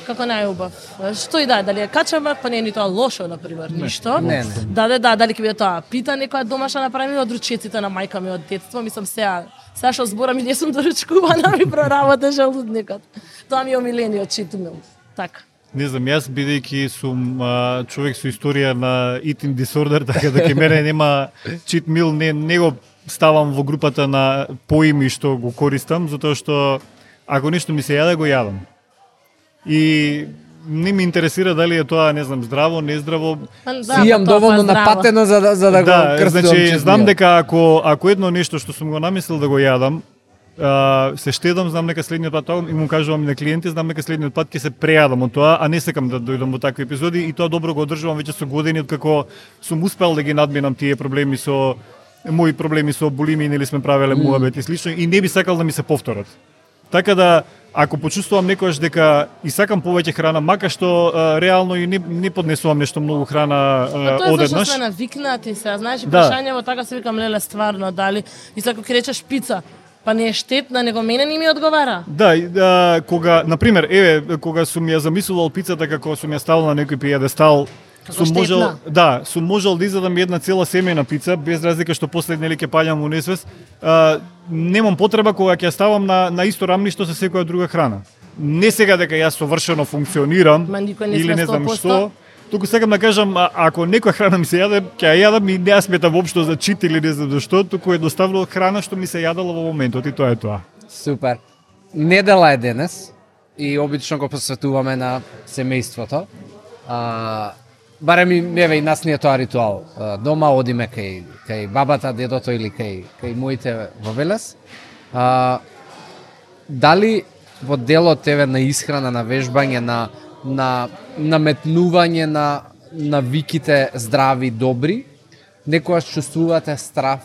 најубав. Што и дали е качамак, па не е ни тоа лошо, например, ништо. Не. Дали ќе биде тоа, пита некоја домашна направена од ручеците на мајка ми од детство, мислам сега што зборам и не сум доручкувана, ми проработа желудникот. Тоа ми е омилениот cheat meal. Така. Не знам, јас бидејќи сум човек со историја на eating disorder, така да ке мене нема cheat meal, не го ставам во групата на поими што го користам, затоа што ако нешто ми се јаде, го јадам. И не ми интересира дали е тоа, не знам, здраво, нездраво. Си имам доволно напатено за да го крстувам. Значи, знам дека ако едно нешто што сум го намислил да го јадам, се штедам, знам дека следниот пат тоа и му кажувам и на клиенти, знам дека следниот пат ќе се прејадам од тоа, а не сакам да дојдам во такви епизоди и тоа добро го одржувам веќе со години откако сум успел да ги надминам тие проблеми со мои проблеми со булимија, нели сме правеле муабет и слично и не би сакал да ми се повторат. Така да ако почувствувам некојаш дека и сакам повеќе храна, мака што реално и не поднесувам нешто многу храна одеднаш. Тоа зашто сме навикнати се, знаеш, прашањево така се викам леле стварно дали и ако ќе речеш пица, па не е штетна, него мене не ми одговара. Да, кога, например, кога сум ја замислувал пицата како сум ја ставил на некој пиједестал, сум можел да изедам една цела семејна пица, без разлика што после нели ќе паѓам во несвест. Немам потреба кога ќе ставам на исто рамништо со секоја друга храна. Не сега дека јас совршено функционирам или не знам што, Туку сакам да кажам, ако некоја храна ми се јаде, ќе ја јадам и не ја сметам воопшто за чит или не знам зашто, туку едноставно храна што ми се јадала во моментот и тоа е тоа. Супер. Недела е денес и обично го посветуваме на семејството. Барем и еве и нас ни е тоа ритуал. Дома одиме кај бабата, дедото или кај моите во Велес. Дали во делот тебе на исхрана, на вежбање, на наметнување на навиките здрави, добри, некојаш чувствувате страф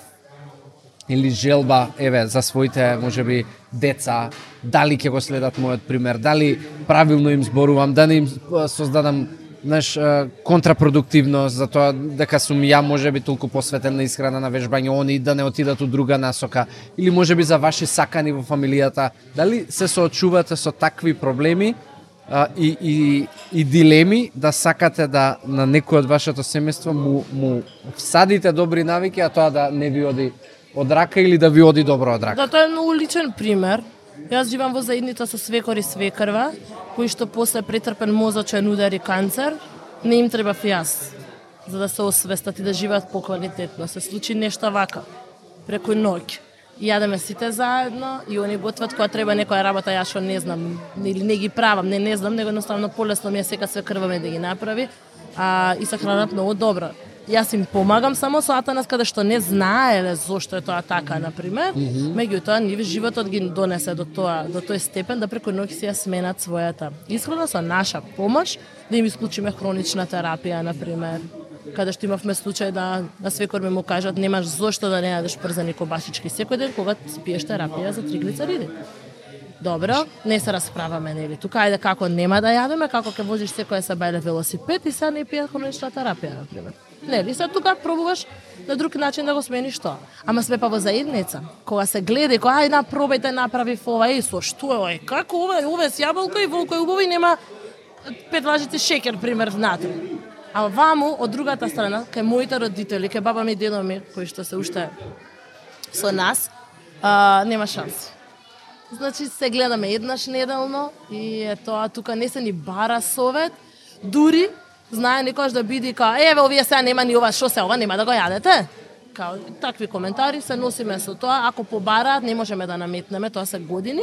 или желба, еве, за своите, можеби, деца, дали ќе го следат мојот пример, дали правилно им зборувам, да не им создадам контрапродуктивност за тоа дека сум ја можеби толку посветен на исхрана, на вежбање, они да не отидат у друга насока, или можеби за ваши сакани во фамилијата, дали се соочувате со такви проблеми и дилеми да сакате да на некој од вашето семејство му всадите добри навики, а тоа да не ви оди од рака или да ви оди добро од рака? Да, тоа е многу личен пример. Јас живам во заедница со свекор и свекрва, кои што после претрпен мозочен удар и канцер, не им треба јас за да се освестат и да живеат поквалитетно. Се случи нешто вака, преку ноќ. Јадеме сите заедно и они готват кога треба некоја работа, јас што не знам, или не ги правам, не знам, него едноставно полесно ми е сека свекрва ме да ги направи, и се хранат многу добро. Јас им помагам само со Атанас каде што не знаеле зошто е тоа така, например. Меѓутоа, нив животот ги донесе до тој степен да преку ноќ си ја сменат својата исхрана со наша помош, да им исклучиме хронична терапија, например. Каде што имавме случај да на свекор ми му кажат немаш зошто да не јадеш прзани кобасички секој ден кога пиеш терапија за триглицериди. Добро, не се расправаме, нели? Тука ајде како нема да јадеме, како ќе возиш секоја сабајле велосипед и сега не пие хронична терапија, например. Нели, сега тука пробуваш на друг начин да го смениш тоа. Ама сме па во заедница. Кога се гледа, кога ај пробајте направи ова, со што е, како ова е с јаболка и волко е убаво и нема 5 лажици шеќер, пример, внатре. А ваму, од другата страна, кај моите родители, кај баба ми и дедо ми, кои што се уште со нас, нема шанси. Значи, се гледаме еднаш неделно и е тоа, тука не се ни бара совет, дури знае некојаш да биде као, еве, овие сега нема ни ова, шо се ова, нема да го јадете? Као, такви коментари се носиме со тоа, ако побараат, не можеме да наметнеме, тоа се години,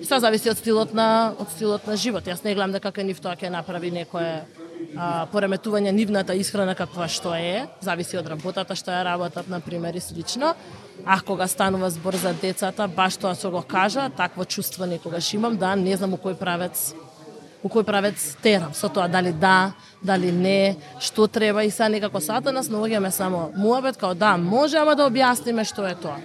и се зависи од стилот на живот. Јас не гледам дека кај нив тоа ќе направи некое пореметување нивната исхрана каква што е, зависи од работата што ја работат, например, и слично. А кога станува збор за децата, баш тоа што го кажа, такво чувство некогаш имам, да не знам у кој правец терам, со тоа дали не, што треба и сега некако сата нас наоѓаме само муабет, као да, може, ама да објасниме што е тоа.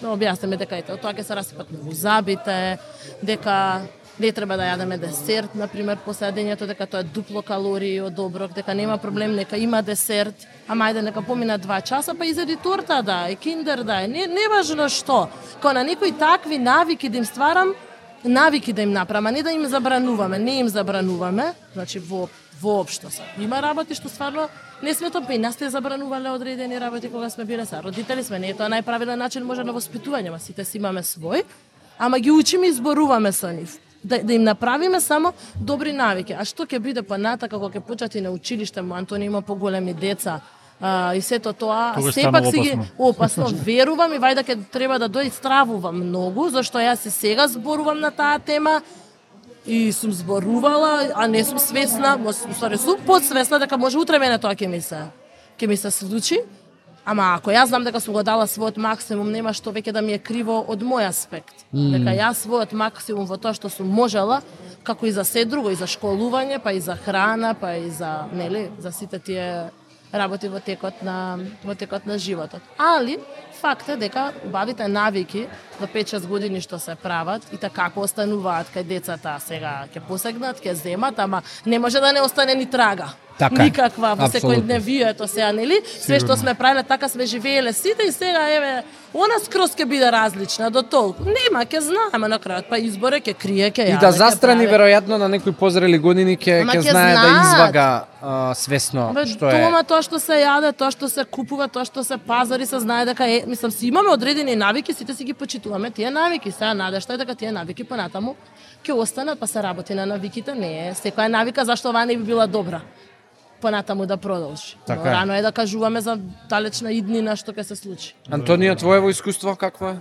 Да објасниме дека ето, тоа ќе се расипат многу забите, дека не треба да јадеме десерт, например, после јадењето, дека тоа е дупло калории од оброк, дека нема проблем, нека има десерт, ама ајде нека помина 2 часа, па изеди торта да е, киндер да е, не важно што. Као на некои такви навики да им стварам, навики да им направам, а не да им забрануваме, не им забрануваме, значи воопшто се. Има работи што стварно не сме тоа, па и нас те забранувале одредени работи кога сме биле са. Родители сме, не е тоа најправилен начин може на воспитување, ма сите си имаме свој, ама ги учиме и зборуваме со нив. Да им направиме само добри навики. А што ќе биде понатака кога ќе почнат и на училиште, Антони има поголеми деца, и сето тоа, сепак си ги опасно верувам и вајда ќе треба да дојде стравувам многу, зашто јас и сега зборувам на таа тема и сум зборувала, а не сум свесна, сум подсвесна дека може утре мене тоа ќе ми се случи. Ама ако јас знам дека сум го дала својот максимум, нема што веќе да ми е криво од мој аспект. Дека јас својот максимум во тоа што сум можела, како и за се друго, и за школување, па и за храна, па и за, нели, за сите тие работи во текот на животот. Али факт е дека убавите навики до 5-6 години што се прават и така како остануваат кај децата, сега ќе посегнат, ќе земат, ама не може да не остане ни трага. Така, никаква во секој дневието сега, нели? Све што сме правеле, така сме живееле сите и сега еве она скроз ќе биде различна до толку. Нема, ќе знаеме на крајот, па изборе ќе крие, ќе јаде. И да застрани веројатно на некои позрели години ќе знае да извага свесно што е. Дома тоа што се јаде, тоа што се купува, тоа што се пазари, се знае дека е, мислам, си имаме одредени навики, сите си ги почитуваме тие навики. Сега надежта е дека тие навики понатаму ќе останат, па се работи на навиките, не е секоја навика зашто оваа не би била добра. понатаму да продолжи. Така Но е. рано е да кажуваме за далечна иднина што ќе се случи. Антонио, твоево искуство какво е?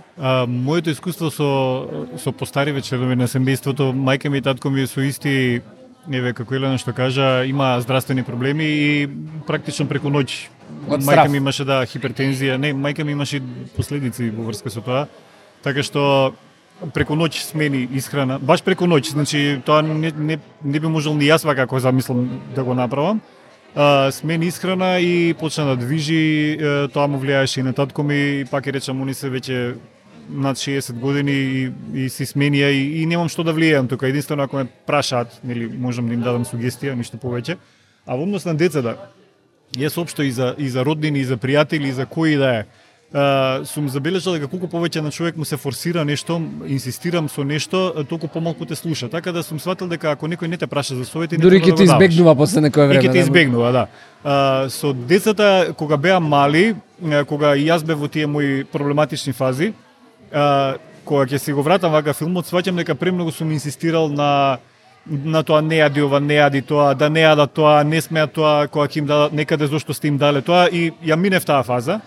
Моето искуство со постариве членови на семејството, мајка ми и татко ми со исти, еве како Елена што кажа, има здравствени проблеми и практично преку ноќ Од мајка страв. ми имаше хипертензија, не, мајка ми имаше последици во врска со тоа. Така што преку ноќ смени исхрана, баш преку ноќ, значи тоа не би можел ни јас како замислам да го направам. Смени исхрана и почна да движи, тоа му влијаеше и на татко ми, пак и речам, они се веќе над 60 години и си сменија и немам што да влијаам тука, единствено ако ме прашаат, нели можам да им дадам сугестија, ништо повеќе. А во однос на децата, јас општо и за роднини, и за пријатели, и за кои да е, сум забележал дека колку повеќе на човек му се форсира нешто, инсистирам со нешто, толку помалку те слуша. Така да сум сватил дека ако некој не те праша за совети, Дури не ќе те избегнува после некое време. И ќе те избегнува, да. Со децата кога беа мали, кога и јас бев во тие мои проблематични фази, кога ќе си го вратам вака филмот, сваќам дека премногу сум инсистирал на тоа не јади ова, не јади тоа, да не јадат тоа, не смеат тоа, кога ќе им дадат некаде зошто сте им дале тоа и ја минев таа фаза.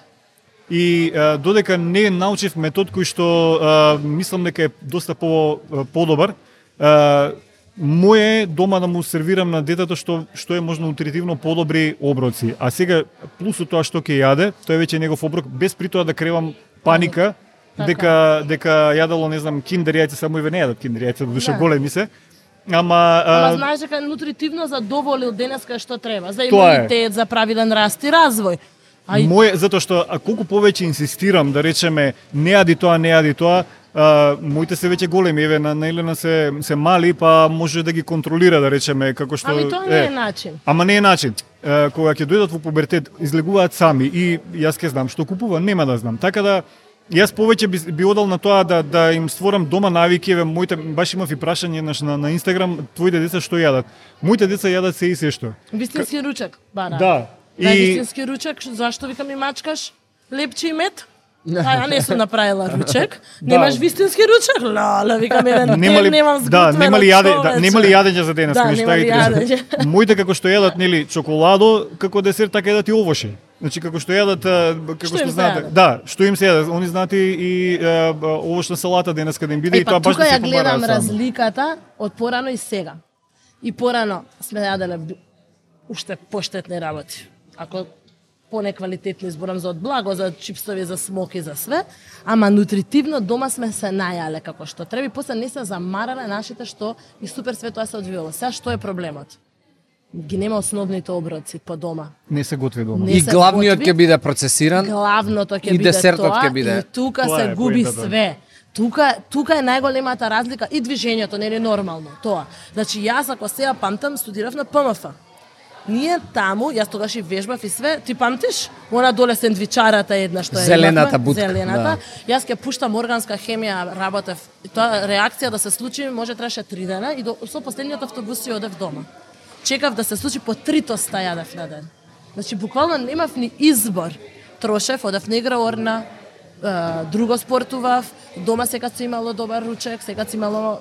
И додека не научив метод кој што мислам дека е доста подобар, моје дома да му сервирам на детето што е можно нутритивно подобри оброци. А сега плюсот тоа што ќе јаде, тоа е веќе негов оброк, без при тоа да кревам паника дека јадало, не знам, киндер јајца, само и не јадат киндер јајца, до душа големи се. Ама знаеш дека нутритивно задоволил денеска што треба, за имунитет, за правилен раст и развој. Затоа што колку повеќе инсистирам да речеме не јади тоа, моите се веќе големи, еве на Елена се мали, па може да ги контролира да речеме како што Ами тоа не е начин. Ама не е начин. Кога ќе дојдат во пубертет, излегуваат сами и јас ќе знам што купува, нема да знам. Така да јас повеќе би одел на тоа да им створам дома навики, еве моите баш имав и прашање на Инстаграм, твоите деца што јадат? Моите деца јадат се и се што. Вистински ручек, бара. Да. Вистински ручек, зашто викам ми мачкаш лепче и мед? А не сум направила ручек. Немаш вистински ручек? Лале, викам немам сготвено. Нема ли јадење за денес? Да, нема ли јадење. Моите како што јадат, нели, чоколадо, како десерт, така јадат и овоши. Значи како што јадат, како што знаете, да, што им се јадат, они знаат и овошна салата денеска да им биде и тоа баш да се тука ја гледам разликата од порано и сега. И порано сме јаделе уште поштетни работи. Ако понеквалитетни изборам за од благо, за чипсови, за смоки, за све, ама нутритивно дома сме се најале како што треба и после не се замарале нашите што и супер све тоа се одвивало. Сега што е проблемот? Ги нема основните оброци по дома. Не се готви дома. И главниот ќе биде процесиран. Главното ќе биде тоа. И десертот ќе биде. И тука се губи све. Тука е најголемата разлика и движењето не е нормално тоа. Значи јас ако сега памтам студирав на ПМФ. Ние таму, јас тогаш и вежбав и све, ти памтиш? Она доле сендвичарата една што е зелената бутка. Зелената. Да. Јас ќе пуштам органска хемија, работев. И тоа реакција да се случи може требаше 3 дена и со последниот автобус си одев дома. Чекав да се случи по 3 тоста јадев на ден. Значи буквално немав ни избор. Трошев, одев на игра орна, друго спортував, дома секад си имало добар ручек, секад си имало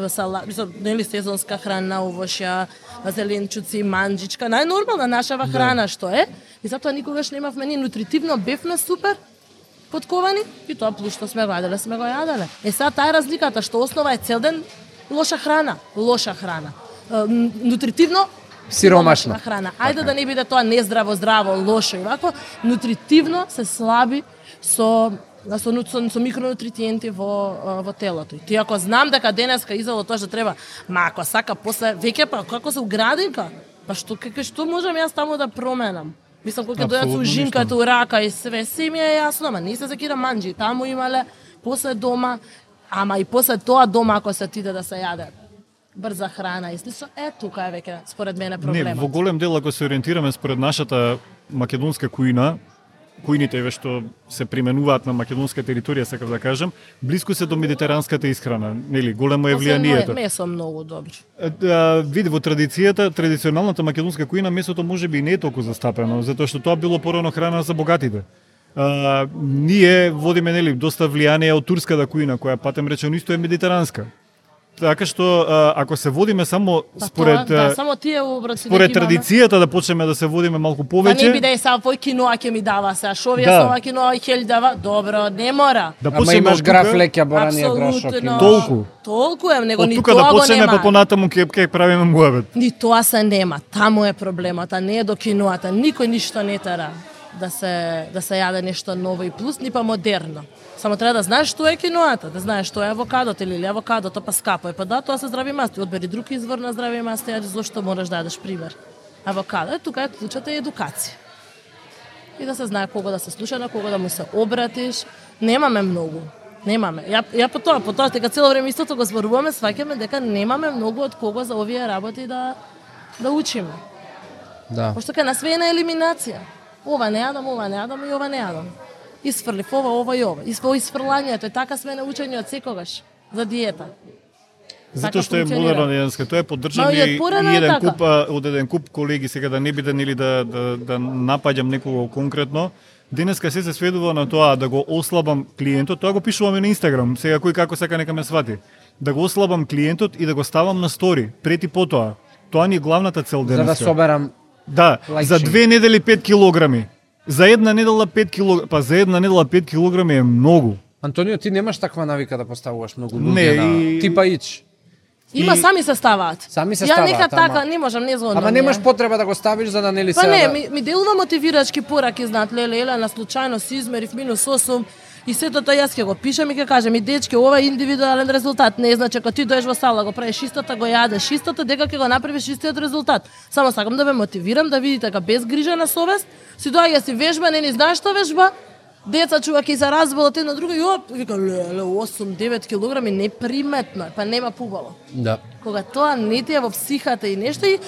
салат, нели сезонска храна, овошја, зеленчуци, манџичка, најнормална нашава храна што е. И затоа никогаш немавме ни нутритивно, бевме супер подковани и тоа плюс што сме ваделе, сме го јаделе. Сега таа е разликата што основа е цел ден лоша храна. Нутритивно сиромашна храна. Ајде да не биде тоа нездраво, лошо и вако, нутритивно се слаби со микронутриенти во телото. И ти ако знам дека денеска изало тоа што треба, ако сака после веќе па како се уградинка, па што можам јас таму да променам? Мислам кога ќе дојдат со ужинката у рака и све, се ми е јасно, ама не се закирам манџи, таму имале после дома, ама и после тоа дома ако се отиде да се јаде брза храна и слично, тука е веќе според мене проблемот. Не, во голем дел ако се ориентираме според нашата македонска кујна, кујните што се применуваат на македонска територија, сакав да кажам, блиску се до медитеранската исхрана, нели, големо е влијанието. Месо многу добро. Види во традиционалната македонска кујна месото можеби не е толку застапено, затоа што тоа било порано храна за богатите. Ние водиме, нели, доста влијание од турската кујна, која патем речено исто е медитеранска. така што ако се водиме само според само тие обраци според традицијата да почнеме да се водиме малку повеќе. Па не биде сега вој киноа ќе ми дава сега, шо вие со ова киноа и хел дава, добро, не мора. Да Ама имаш граф леќа боранија Толку. Толку е, него ни тука тоа да го почнеме нема. па понатаму ќе правиме муабет. Ни тоа се нема, таму е проблемот, а не е до киноата. Никој ништо не тера да се јаде нешто ново и плюс, ни па модерно. Само треба да знаеш што е киноата, да знаеш што е авокадото или авокадото па скапо е. Па да, тоа се здрави масти. Одбери друг извор на здрави масти, а зошто мораш да јадеш пример. Авокадо, тука е клучата е едукација. И да се знае кого да се слуша, на кого да му се обратиш. Немаме многу. Немаме. Ја по тоа дека цело време истото го зборуваме, сваќаме дека немаме многу од кого за овие работи да учиме. Да. Пошто кај нас све е на елиминација. Ова не јадам и ова не јадам. Исфрлив ова и ова. Исфрлањето е така све на учење од секогаш за диета. Затоа што е модерно денеска, тоа е поддржано и од еден куп колеги, сега да не биде нели да напаѓам некого конкретно. Денеска се сведува на тоа да го ослабам клиентот, тоа го пишуваме на Инстаграм, сега кој како сака нека ме свати. Да го ослабам клиентот и да го ставам на стори, пред и потоа. Тоа ни е главната цел денеска. За да соберам за 2 недели 5 килограми. За една недела 5 килограми, па за една недела 5 килограми е многу. Антонио, ти немаш таква навика да поставуваш многу луѓе на типа ич. Има сами се ставаат. Сами се Ја ставаат. нека така, не можам, не згодно. Ама немаш потреба да го ставиш за да нели се. Па не, ми делува мотивирачки пораки, знаат, леле, на случајно си измерив -8 и сето тоа јас ќе го пишам и ќе кажам и дечки, ова е индивидуален резултат. Не значи ако ти доеш во сала, го правиш истото, го јадеш истото, дека ќе го направиш истиот резултат. Само сакам да ве мотивирам да видите дека без грижа на совест си доаѓа си вежба, не ни знаеш што вежба. Деца чува ќе се разболат едно друго и оп, вика леле 8-9 килограми неприметно, па нема пубаво. Да. Кога тоа не ти е во психата и нешто и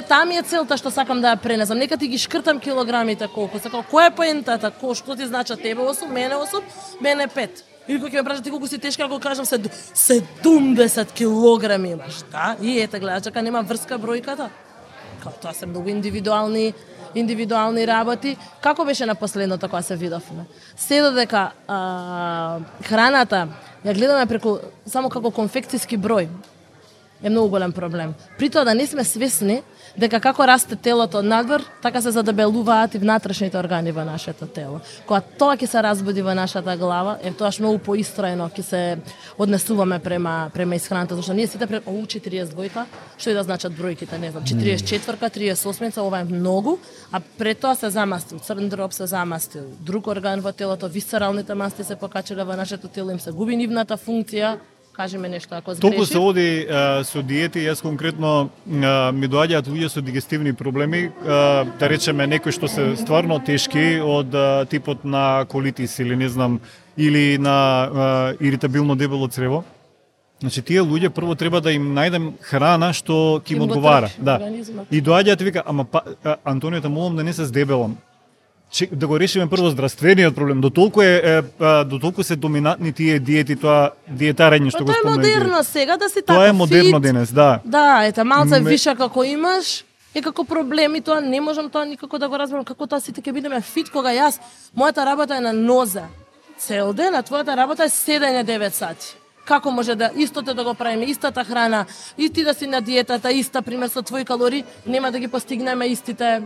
таа ми е целта што сакам да ја пренесам. Нека ти ги шкртам килограмите колку сакам. Која е поентата? Што ти значи тебе 8, мене 8, мене 5. Или кој ќе ме прашат ти колку си тешка, ако кажам 70 килограми имаш, да? И ете гледаш дека нема врска бројката. Као тоа се многу индивидуални работи. Како беше на последното кога се видовме? Се додека храната ја гледаме преку само како конфекцијски број е многу голем проблем. При тоа да не сме свесни дека како расте телото надвор, така се задебелуваат и внатрешните органи во нашето тело. Кога тоа ќе се разбуди во нашата глава, тоаш многу поистроено ќе се однесуваме према исхраната, зашто ние сите 42, што и да значат бројките, не знам, 44-ка, 38-ца, ова е многу, а пред тоа се замастил, црн дроб се замастил, друг орган во телото, висцералните масти се покачиле во нашето тело, им се губи нивната функција. Кажи ме нешто ако сгрешив. Толку се оди со диети, јас конкретно ми доаѓаат луѓе со дигестивни проблеми, да речеме некои што се стварно тешки од типот на колитис или не знам, или на иритабилно дебело црево. Значи тие луѓе прво треба да им најдем храна што ќе им одговара, да. И доаѓаат и вика, ама Антонио, те молам да не се здебелам. Да го решиме прво здравствениот проблем. Дотолку се доминантни тие диети, тоа диетарење што го спомнав. Тоа е модерно сега да си така. Тоа е модерно денес, да. Да, ете малце виша како имаш и како проблеми, тоа не можам тоа никако да го разберам како тоа сите ќе бидеме фит кога јас мојата работа е на ноза. Цел ден, а твојата работа е седење 9 сати. Како може да истото да го правиме, истата храна, и ти да си на диетата, иста пример со твои калории, нема да ги постигнеме истите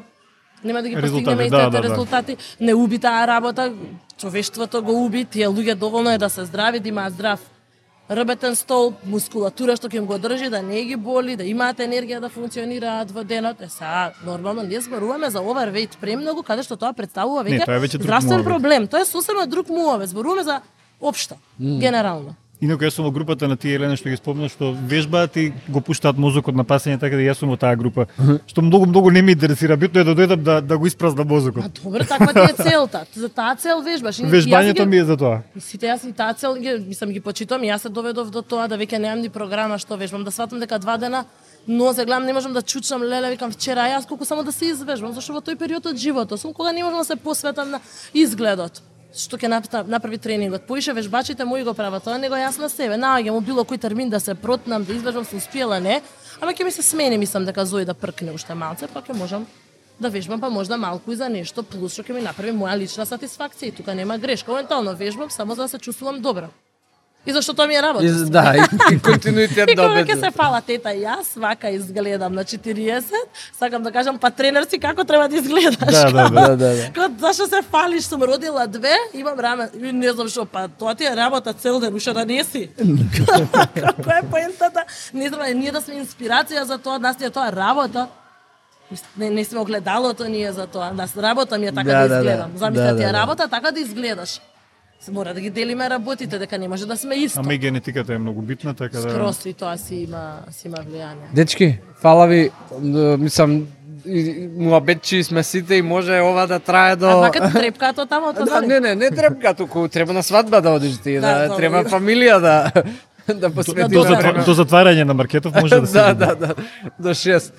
резултати. Не уби таа работа, човештвото го уби, тие луѓе доволно е да се здрави, да имаат здрав рбетен стол, мускулатура што ќе им го држи, да не ги боли, да имаат енергија да функционираат во денот. Сега, нормално, ние зборуваме за overweight премногу, каде што тоа представува веќе здравствен проблем. Тоа е сосема друг муавет. Зборуваме за општо, генерално. Инаку јас сум во групата на тие Елена што ги спомна, што вежбаат и го пуштаат мозокот на пасење, така да јас сум во таа група. Што многу не ме интересира, битно е да дојдам да го испразнам мозокот. Добро, таква ти е целта. За таа цел вежбаш. Вежбањето ми е за тоа. Сите јас и таа цел ги почитувам, јас се доведов до тоа да веќе немам ни програма што вежбам, да сватам дека 2 дена нозе гледам, не можам да чучам, леле, викам вчера јас колку само да се извежбам, зашто во тој период од животот сум кога не можам да се посветам на изгледот. Што ќе направи тренингот. Поише вежбачите мои го прават, тоа него јас на себе. Наоѓам било кој термин да се протнам, да извежбам, сум успела, не. Ама ќе ми се смени, мислам дека Зои да пркне уште малце, па ќе можам да вежбам, па можда малку и за нешто плюс што ќе ми направи моја лична сатисфакција. И тука нема грешка. Моментално вежбам само за да се чувствувам добро. И зашто тоа ми е работа. Да, и континуитет И да кога ќе обезбеди. се фала тета, јас вака изгледам на 40, сакам да кажам, па тренер си како треба да изгледаш. Да. Зашто се фалиш, сум родила 2, имам раме, и не знам што, па тоа ти е работа цел ден, уште да не си. Која е поентата? Не знам, ние да сме инспирација за тоа, нас ти е тоа работа. Не сме огледалото ние за тоа. Нас работа ми е така да изгледам. Замислете, ти е работа така да изгледаш. Мора да ги делиме работите, дека не може да сме исто. Ама и генетиката е многу битна, така да... Скрос и тоа си има влијание. Дечки, фала ви, мислам, муабетчи сме сите и може ова да трае до... А вака ти трепкато таму, тоа Не трепка, туку треба на свадба да одиш ти, Да, треба фамилија да посвети До време. До затварање на маркетов може да се... Да, до 6.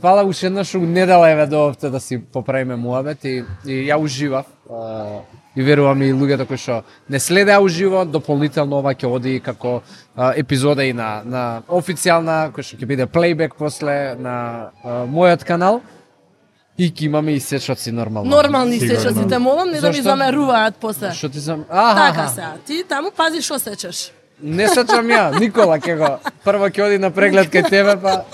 Фала уште еднаш, недела еве доовте да си поправиме муабет и ја уживав. И верувам и луѓето кои што не следеа уживо, дополнително ова ќе оди како епизода и на официјална, кој што ќе биде плейбек после на мојот канал. И ќе имаме и сечоци нормално. Нормални сечоци, те молам не да ми Зашто? замеруваат после. Што ти Така се, ти таму пази што сечеш. Не сечам ја, Никола ќе го. Прво ќе оди на преглед кај тебе, па...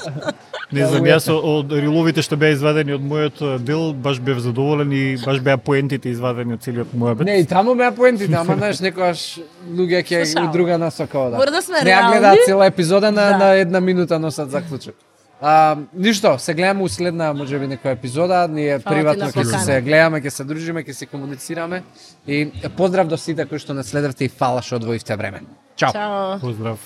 Не знам, јас од риловите што беа извадени од мојот дел, баш бев задоволен и баш беа поентите извадени од целиот мојабет. Не, и таму беа поентите, ама знаеш, некојаш луѓе ќе Слушам. у друга насока одат. Мора да сме Не ја реални. гледаат цела епизода на Да. една минута носат заклучок. Ништо, се гледаме у следна, можеби некоја епизода, ние Фала ти приватно на ќе покана. се гледаме, ќе се дружиме, ќе се комуницираме и поздрав до сите кои што не следевте и фала што одвоивте време. Чао. Чао. Поздрав.